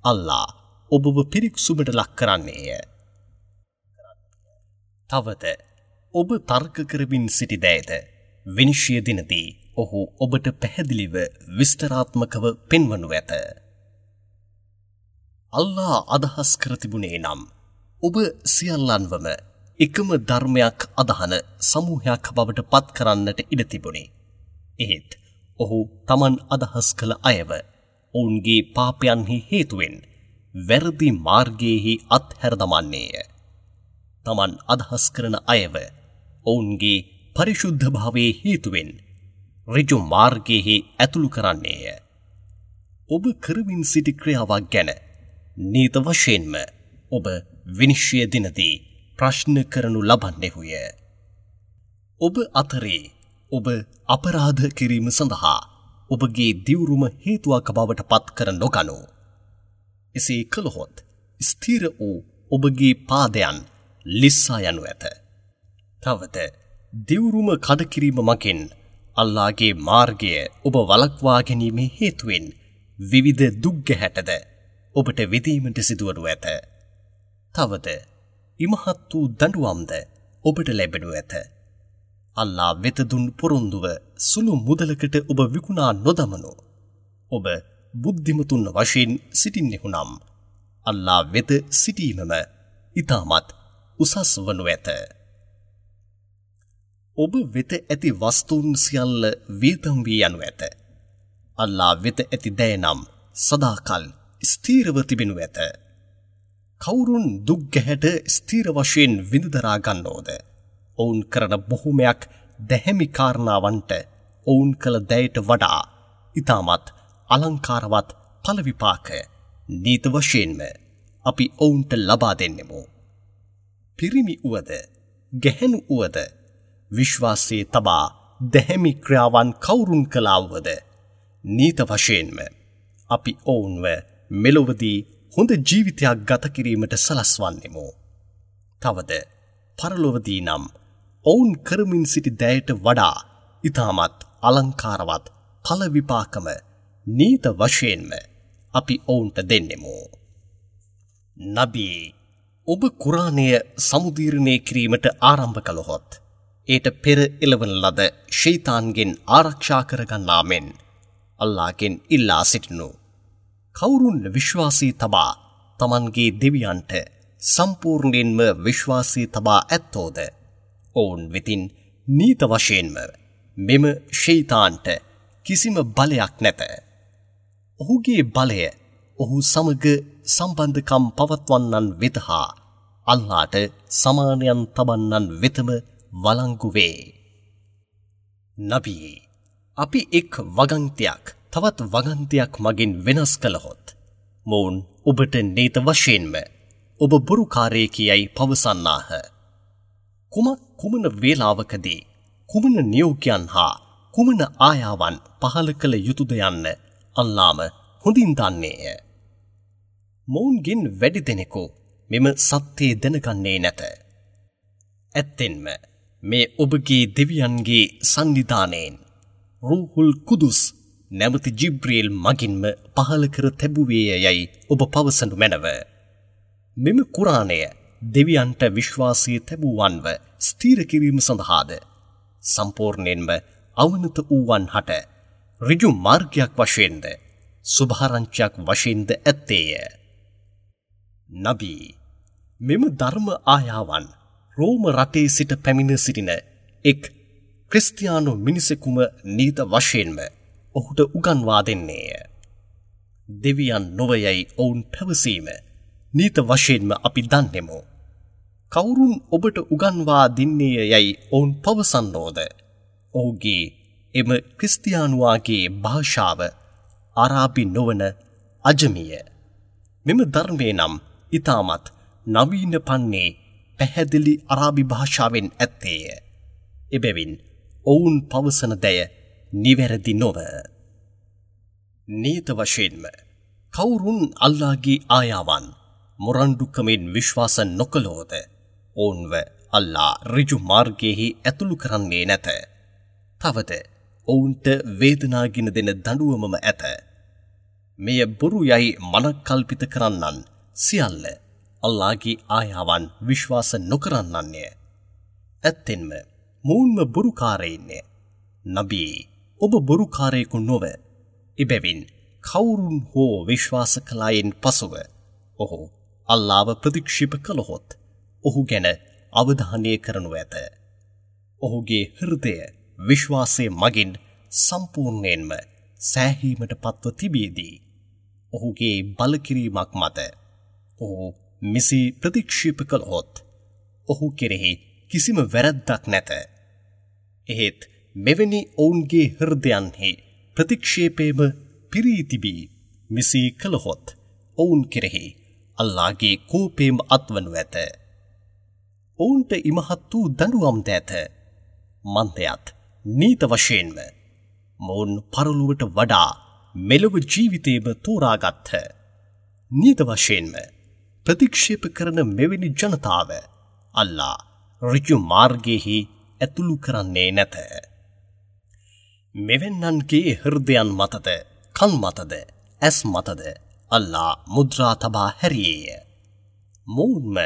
අල්ලා ඔබව පිරික්සුමට ලක් කරන්නේය. තවද ඔබ තර්ක කරමින් සිටි දෑද විනිශ්චය දිනදී ඔහු ඔබට පැහැදිලිව විස්තරාත්මකව පෙන්වනු ඇත. අල්ලා අදහස් කර තිබුණේ නම් ඔබ සියල්ලන්වම එකම ධර්මයක් අදහන සමූහයක් බවට පත් කරන්නට ඉඩ තිබුණි. එහෙත් ඔහු තමන් අදහස් කළ අයව ඔවුන්ගේ පාපයන්හි හේතුවෙන් වැරදි මාර්ගයේහි අත්හැර දමන්නේය. තමන් අදහස් කරන අයව ඔවුන්ගේ පරිශුද්ධ භාවයේ හේතුවෙන් ඍජු මාර්ගයේහි ඇතුළු කරන්නේය. ඔබ කරමින් සිටි ක්‍රියාවක් ගැන නීත වශයෙන්ම ඔබ විනිශ්චය දිනදී ප්‍රශ්න කරනු ලබන්නෙහුය. ඔබ අතරේ ඔබ අපරාධ කිරීම සඳහා ඔබගේ දිවුරුම හේතුවක් බවට පත් කර නොගනු. එසේ කළහොත් ස්ථිර වූ ඔබගේ පාදයන් ලිස්සා යනු ඇත. තවද දිවුරුම කඩ කිරීම මගින් අල්ලාගේ මාර්ගය ඔබ වළක්වා ගැනීමේ හේතුවෙන් විවිධ දුක් ගැහැටද ඔබට විඳීමට සිදුවනු ඇත. තවද ඉමහත් වූ දඬුවම්ද ඔබට ලැබෙනු ඇත. අල්ලා වෙත දුන් පොරොන්දුව සුළු මුදලකට ඔබ විකුණා නොදමනු. ඔබ බුද්ධිමතුන් වශයෙන් සිටින්නෙහු නම් අල්ලා වෙත සිටීමම ඉතාමත් උසස් වනු ඇත. ඔබ වෙත ඇති වස්තුන් සියල්ල වියදම් වී යනු ඇත. අල්ලා වෙත ඇති දෑ නම් සදාකල් ස්ථිරව තිබෙනු ඇත. කවුරුන් දුක් ගැහැට ස්ථිර වශයෙන් විඳ දරා ගන්නෝද? ඔවුන් කරන බොහොමයක් දැහැමි කාරණාවන්ට ඔවුන් කළ දෑයට වඩා ඉතාමත් අලංකාරවත් ඵල විපාක නීත වශයෙන්ම අපි ඔවුන්ට ලබා දෙන්නෙමු. පිරිමි වුවද ගැහැණු වුවද විශ්වාසයේ තබා දැහැමි ක්‍රියාවන් කවුරුන් කළා වුවද නීත වශයෙන්ම අපි ඔවුන්ව මෙලොවදී හොඳ ජීවිතයක් ගත කිරීමට සලස්වන්නෙමු. තවද පරලොවදී නම් ඔවුන් කරමින් සිටි දෑයට වඩා ඉතාමත් අලංකාරවත් ඵල විපාකම නීත වශයෙන්ම අපි ඔවුන්ට දෙන්නෙමු. නබී, ඔබ කුරානය සමුදීරණය කිරීමට ආරම්භ කළහොත් ඒට පෙර එළවන ලද ෂයිතාන්ගෙන් ආරක්ෂා කරගන්නා මෙන් අල්ලාගෙන් ඉල්ලා සිටිනු. කවුරුන් විශ්වාසී තබා තමන්ගේ දෙවියන්ට සම්පූර්ණයෙන්ම විශ්වාසී තබා ඇත්තෝද ඔවුන් වෙතින් නීත වශයෙන්ම මෙම ෂයිතාන්ට කිසිම බලයක් නැත. ඔහුගේ බලය ඔහු සමග සම්බන්ධකම් පවත්වන්නන් වෙත හා අල්ලාට සමානයන් තබන්නන් වෙතම වළංගු වේ. නබී, අපි එක් වගන්තියක් තවත් වගන්තියක් මගින් වෙනස් කළහොත් මොවුන් ඔබට නීත වශයෙන්ම ඔබ බොරුකාරයෙකි යයි පවසන්නාහ. කුමක් කුමන වේලාවකදී කුමන නියෝගයන් හා කුමන ආයාවන් පහළ කළ යුතුද යන්න අල්ලාම හොඳින් දන්නේය. මොවුන්ගෙන් වැඩි දෙනෙකු මෙම සත්‍යය දැනගන්නේ නැත. ඇත්තෙන්ම මේ ඔබගේ දෙවියන්ගේ සන්නිධානයෙන් රූහුල් කුදුස් නැමැති ජිබ්‍රීල් මගින්ම පහළ කර තැබුවේය යයි ඔබ පවසනු මැනව. මෙම කුරානය දෙවියන්ට විශ්වාසය තැබුවන්ව ස්ථිර කිරීම සඳහාද සම්පූර්ණයෙන්ම අවනත වූවන් හට ඍජු මාර්ගයක් වශයෙන්ද සුභාරංචියක් වශයෙන්ද ඇත්තේය. නබී, මෙම ධර්ම ආයාවන් රෝම රටේ සිට පැමිණ සිටින එක් ක්‍රිස්තියානු මිනිසෙකුම නීත වශයෙන්ම ඔහුට උගන්වා දෙන්නේය. දෙවියන් නොවයයි ඔවුන් පැවසීම නීත වශයෙන්ම අපි දන්නෙමු. කවුරුන් ඔබට උගන්වා දෙන්නේය යයි ඔවුන් පවසන්නෝද? ඔහුගේ එම ක්‍රිස්තියානුවාගේ භාෂාව අරාබි නොවන අජමිය. මෙම ධර්මය නම් ඉතාමත් නවීන පන්නේ පැහැදිලි අරාබි භාෂාවෙන් ඇත්තේය. එබැවින් ඔවුන් පවසන දෑ නිවැරදි නොව. නීත වශයෙන්ම කවුරුන් අල්ලාගේ ආයාවන් මොරණ්ඩුකමින් විශ්වාස නොකළෝද ඔවුන්ව අල්ලා ඍජු මාර්ගයෙහි ඇතුළු කරන්නේ නැත. තවද ඔවුන්ට වේදනාගෙන දෙන දඬුවමම ඇත. මෙය බොරු යයි මනක්කල්පිත කරන්නන් සියල්ල අල්ලාගේ ආයාවන් විශ්වාස නොකරන්නන්ය. ඇත්තෙන්ම මොවුන්ම බොරුකාරයින්ය. නබී, ඔබ බොරුකාරයෙකු නොව. එබැවින් කවුරුන් හෝ විශ්වාස කළායින් පසුව ඔහු අල්ලාව ප්‍රතික්ෂේප කළහොත් ඔහු ගැන අවධානය කරනු ඇත. ඔහුගේ හෘදය විශ්වාසය මගින් සම්පූර්ණයෙන්ම සෑහීමට පත්ව තිබියදී ඔහුගේ බලකිරීමක් මත ඔහු මෙසේ ප්‍රතික්ෂේප කළහොත් ඔහු කෙරෙහි කිසිම වැරැද්දක් නැත. එහෙත් මෙවැනි ඔවුන්ගේ හෘදයන්හි ප්‍රතික්ෂේපයම පිරී තිබී මෙසේ කළහොත් ඔවුන් කෙරෙහි අල්ලාහගේ කෝපයම අත්වනු ඇත. ඔවුන්ට ඉමහත් වූ දඬුවම්ද ඇත. මන්දයත් නීත වශයෙන්ම මොවුන් පරලොවට වඩා මෙලොව ජීවිතයම තෝරාගත්හ. නීත වශයෙන්ම ප්‍රතික්ෂේප කරන මෙවැනි ජනතාව අල්ලා ඍජු මාර්ගයෙහි ඇතුළු කරන්නේ නැත. මෙවැන්නන්ගේ හෘදයන් මතද, කන් මතද, ඇස් මතද අල්ලා මුද්‍රා තබා හැරියේය. මොවුන්ම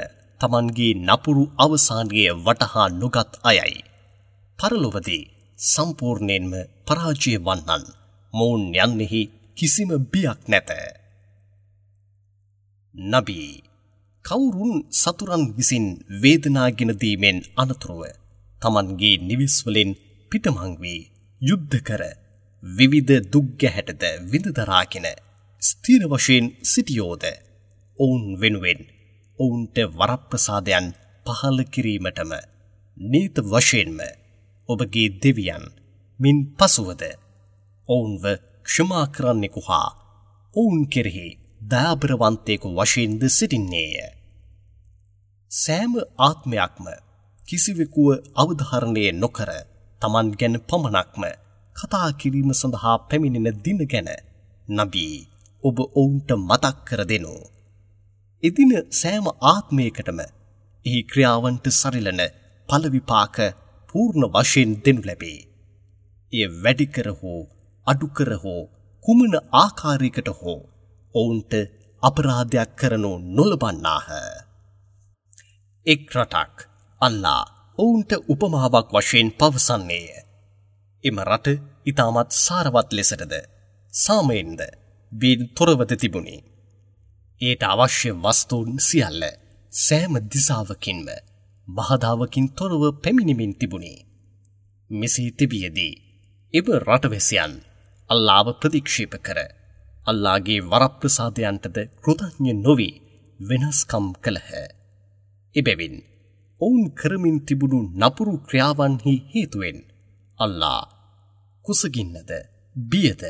තමන්ගේ නපුරු අවසානය වටහා නොගත් අයයි. පරලොවදී සම්පූර්ණයෙන්ම පරාජය වන්නන් මොවුන් යන්නෙහි කිසිම බියක් නැත. නබී, කවුරුන් සතුරන් විසින් වේදනාගෙන දීමෙන් අනතුරුව තමන්ගේ නිවෙස් වලින් පිටමං වී යුද්ධ කර විවිධ දුක් ගැහැටද විඳ දරාගෙන ස්ථිර වශයෙන් සිටියෝද ඔවුන් වෙනුවෙන් ඔවුන්ට වරප්‍රසාදයන් පහළ කිරීමටම නීත වශයෙන්ම ඔබගේ දෙවියන් මින් පසුවද ඔවුන්ව ක්ෂමා කරන්නෙකු හා ඔවුන් කෙරෙහි දයාබරවන්තයෙකු වශයෙන්ද සිටින්නේය. සෑම ආත්මයක්ම කිසිවෙකුව අවධාරණය නොකර තමන් ගැන පමණක්ම කතා කිරීම සඳහා පැමිණෙන දින ගැන නබී ඔබ ඔවුන්ට මතක් කර දෙනු. එදින සෑම ආත්මයකටම එහි ක්‍රියාවන්ට සරිලන ඵල විපාක පූර්ණ වශයෙන් දෙනු ලැබේ. එය වැඩි කර හෝ අඩු කර හෝ කුමන ආකාරයකට හෝ ඔවුන්ට අපරාධයක් කරනු නොලබන්නාහ. එක් රටක් අල්ලා ඔවුන්ට උපමාවක් වශයෙන් පවසන්නේය. එම රට ඉතාමත් සාරවත් ලෙසටද සාමයෙන්ද බීන් තොරවද තිබුණි. ඒට අවශ්‍ය වස්තුන් සියල්ල සෑම දිසාවකින්ම බාධාවකින් තොරව පැමිණෙමින් තිබුණි. මෙසේ තිබියදී එම රටවැසියන් අල්ලාව ප්‍රතික්ෂේප කර අල්ලාගේ වරප්‍රසාදයන්ටද කෘතඥ නොවී වෙනස්කම් කළහ. එබැවින් ඔවුන් කරමින් තිබුණු නපුරු ක්‍රියාවන්හි හේතුවෙන් අල්ලා කුසගින්නද බියද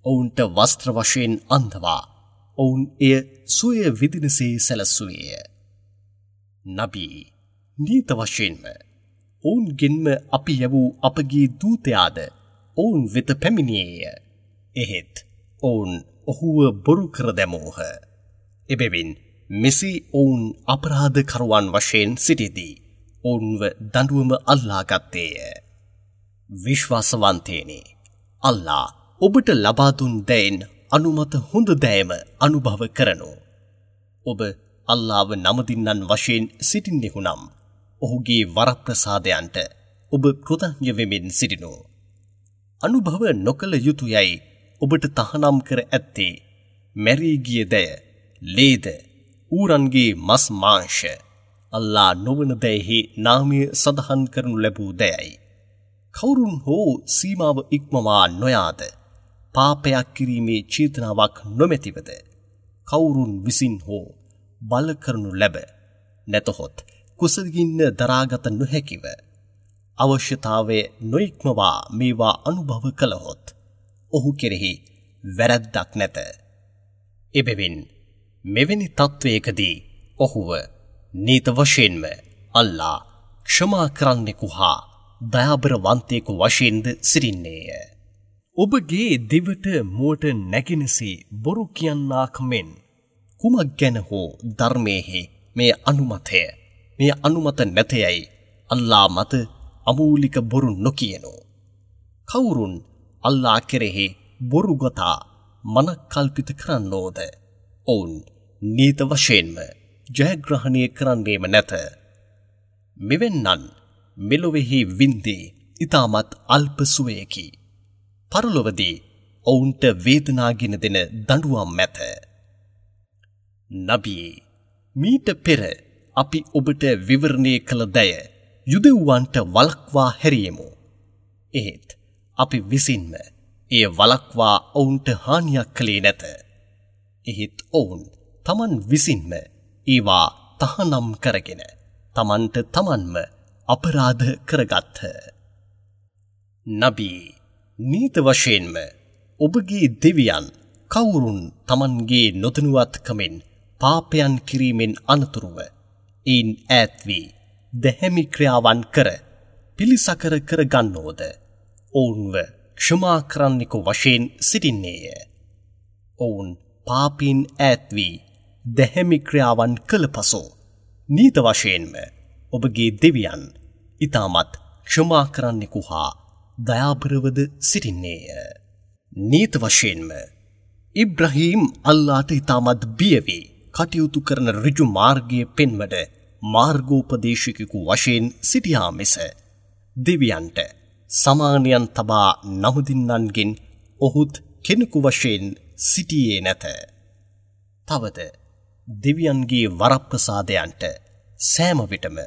ඔවුන්ට වස්ත්‍ර වශයෙන් අන්දවා ඔවුන් එය සුවය විදිනසේ සැලසුවේය. නබී, නීත වශයෙන්ම ඔවුන්ගෙන්ම අපි යැවූ අපගේ දූතයාද ඔවුන් වෙත පැමිණියේය. එහෙත් ඔවුන් ඔහුව බොරු කර දැමූහ. එබැවින් මෙසේ ඔවුන් අපරාධකරුවන් වශයෙන් සිටිදී ඔවුන්ව දඬුවම අල්ලාගත්තේය. විශ්වාසවන්තයනි, අල්ලා ඔබට ලබා දුන් දෑයින් අනුමත හොඳ දෑයම අනුභව කරනු. ඔබ අල්ලාව නමදින්නන් වශයෙන් සිටින්නෙහු නම් ඔහුගේ වරප්‍රසාදයන්ට ඔබ කෘතඥ වෙමින් සිටිනු. අනුභව නොකළ යුතු යයි ඔබට තහනම් කර ඇත්තේ මැරී ගිය දෑ, ලේද, ඌරන්ගේ මස් මාංශ, අල්ලා නොවන දෑහි නාමය සඳහන් කරනු ලැබූ දෑයි. කවුරුන් හෝ සීමාව ඉක්මවා නොයාද පාපයක් කිරීමේ චේතනාවක් නොමැතිවද කවුරුන් විසින් හෝ බල කරනු ලැබ නැතහොත් කුසගින්න දරාගත නොහැකිව අවශ්‍යතාවය නොඉක්මවා මේවා අනුභව කළහොත් ඔහු කෙරෙහි වැරැද්දක් නැත. එබැවින් මෙවැනි තත්ත්වයකදී ඔහුව නීත වශයෙන්ම අල්ලා ක්ෂමා කරන්නෙකු හා දයාබරවන්තයෙකු වශයෙන්ද සිටින්නේය. ඔබගේ දිවට මුවට නැගෙනසේ බොරු කියන්නාක් මෙන් කුමක් ගැන හෝ ධර්මයේහි මේ අනුමතය මේ අනුමත නැතයයි අල්ලා මත අමූලික බොරු නොකියනු. කවුරුන් අල්ලා කෙරෙහි බොරු ගොතා මනක්කල්පිත කරන්නෝද ඔවුන් නීත වශයෙන්ම ජයග්‍රහණය කරන්නේම නැත. මෙවැන්නන් මෙලොවෙහි වින්දේ ඉතාමත් අල්ප සුවයකි. පරලොවදී ඔවුන්ට වේදනාගෙන දෙන දඬුවම් ඇත. නබියේ, මීට පෙර අපි ඔබට විවරණය කළ දය යුදෙව්වන්ට වළක්වා හැරියෙමු. එහෙත් අපි විසින්ම එය වළක්වා ඔවුන්ට හානියක් කළේ නැත. එහෙත් ඔවුන් තමන් විසින්ම ඒවා තහනම් කරගෙන තමන්ට තමන්ම අපරාධ කරගත්හ. නබී, නීත වශයෙන්ම ඔබගේ දෙවියන් කවුරුන් තමන්ගේ නොදැනුවත්කමෙන් පාපයන් කිරීමෙන් අනතුරුව එයින් ඈත් වී දැහැමි ක්‍රියාවන් කර පිළිසකර කර ගන්නෝද ඔවුන්ව ක්ෂමා කරන්නෙකු වශයෙන් සිටින්නේය. ඔවුන් පාපීන් ඈත් වී දැහැමි ක්‍රියාවන් කළ පසු නීත වශයෙන්ම ඔබගේ දෙවියන් ඉතාමත් ක්ෂමා කරන්නෙකු හා දයාබරවද සිටින්නේය. නීත වශයෙන්ම ඉබ්‍රහීම් අල්ලාට ඉතාමත් බිය වී කටයුතු කරන ඍජු මාර්ගය පෙන්වන මාර්ගෝපදේශකයෙකු වශයෙන් සිටියා මිස දෙවියන්ට සමානයන් තබා නමුදින්නන්ගෙන් ඔහුත් කෙනෙකු වශයෙන් සිටියේ නැත. තවද දෙවියන්ගේ වරප්‍රසාදයන්ට සෑම විටම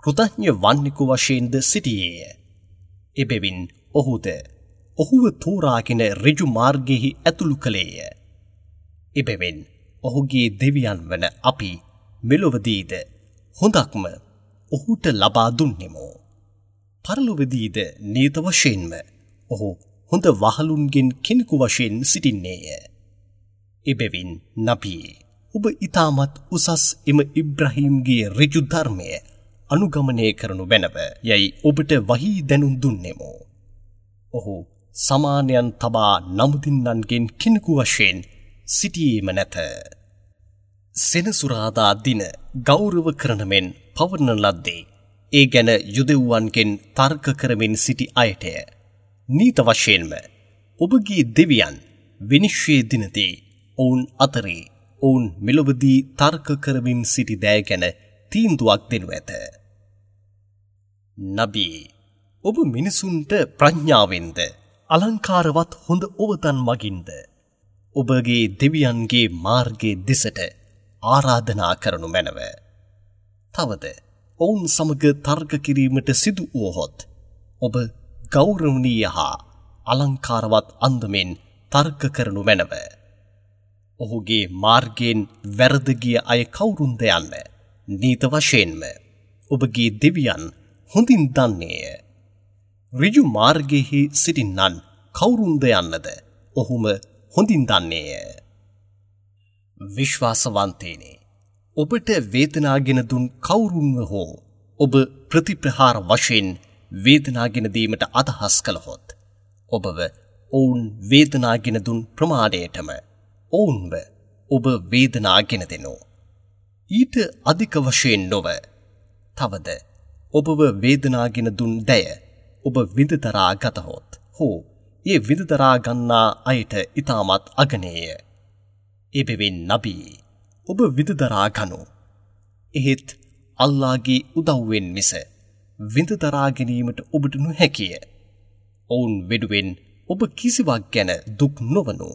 කෘතඥ වන්නෙකු වශයෙන්ද සිටියේය. එබැවින් ඔහුද ඔහුව තෝරාගෙන ඍජු මාර්ගයෙහි ඇතුළු කළේය. එබැවින් ඔහුගේ දෙවියන් වන අපි මෙලොවදීද හොඳක්ම ඔහුට ලබා දුන්නෙමු. පරලොවදීද නියත වශයෙන්ම ඔහු හොඳ වහලුන්ගෙන් කෙනෙකු වශයෙන් සිටින්නේය. එබැවින් නබියේ, ඔබ ඉතාමත් උසස් එම ඉබ්‍රහීම්ගේ ඍජු ධර්මය අනුගමනය කරනු මැනව යයි ඔබට වහී දැනුම් දුන්නෙමු. ඔහු සමානයන් තබා නමුදින්නන්ගෙන් කෙනෙකු වශයෙන් සිටියේම නැත. සෙනසුරාදා දින ගෞරව කරන මෙන් පවරන ලද්දේ ඒ ගැන යුදෙව්වන්ගෙන් තර්ක කරමින් සිටි අයටය. නීත වශයෙන්ම ඔබගේ දෙවියන් විනිශ්චය දිනදී ඔවුන් අතරේ ඔවුන් මෙලොවදී තර්ක කරමින් සිටි දෑ ගැන තීන්දුවක් දෙනු ඇත. නබී, ඔබ මිනිසුන්ට ප්‍රඥාවෙන්ද අලංකාරවත් හොඳ ඔවතන් මගින්ද ඔබගේ දෙවියන්ගේ මාර්ගයේ දෙසට ආරාධනා කරනු මැනව. තවද ඔවුන් සමග තර්ක කිරීමට සිදු වුවහොත් ඔබ ගෞරවනීය හා අලංකාරවත් අන්දමෙන් තර්ක කරනු මැනව. ඔහුගේ මාර්ගයෙන් වැරද ගිය අය කවුරුන්ද යන්න නීත වශයෙන්ම ඔබගේ දෙවියන් හොඳින් දන්නේය. ඍජු මාර්ගයෙහි සිටින්නන් කවුරුන්ද යන්නද ඔහුම හොඳින් දන්නේය. විශ්වාසවන්තයනි, ඔබට වේදනාගෙන දුන් කවුරුන්ව හෝ ඔබ ප්‍රතිප්‍රහාර වශයෙන් වේදනාගෙන දීමට අදහස් කළහොත් ඔබව ඔවුන් වේදනාගෙන දුන් ප්‍රමාණයටම ඔවුන්ව ඔබ වේදනාගෙන දෙනු. ඊට අධික වශයෙන් නොව. තවද ඔබව වේදනාගෙන දුන් දැය ඔබ විඳදරා ගතහොත් හෝ ඒ විඳදරා ගන්නා අයට ඉතාමත් අගනේය. එබැවින් නබී, ඔබ විඳදරා ගනු. එහෙත් අල්ලාගේ උදව්වෙන් මිස විඳදරා ගැනීමට ඔබට නොහැකිය. ඔවුන් වෙනුවෙන් ඔබ කිසිවක් ගැන දුක් නොවනු.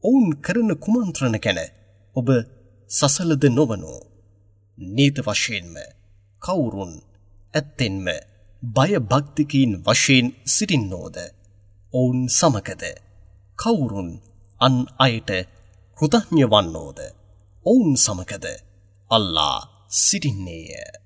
ඔවුන් කරන කුමන්ත්‍රණ ගැන ඔබ සසලද නොවනු. නීත වශයෙන්ම කවුරුන් ඇත්තෙන්ම බයභක්තිකයින් වශයෙන් සිටින්නෝද ඔවුන් සමගද කවුරුන් අන් අයට කෘතඥ වන්නෝද ඔවුන් සමගද අල්ලා සිටින්නේය.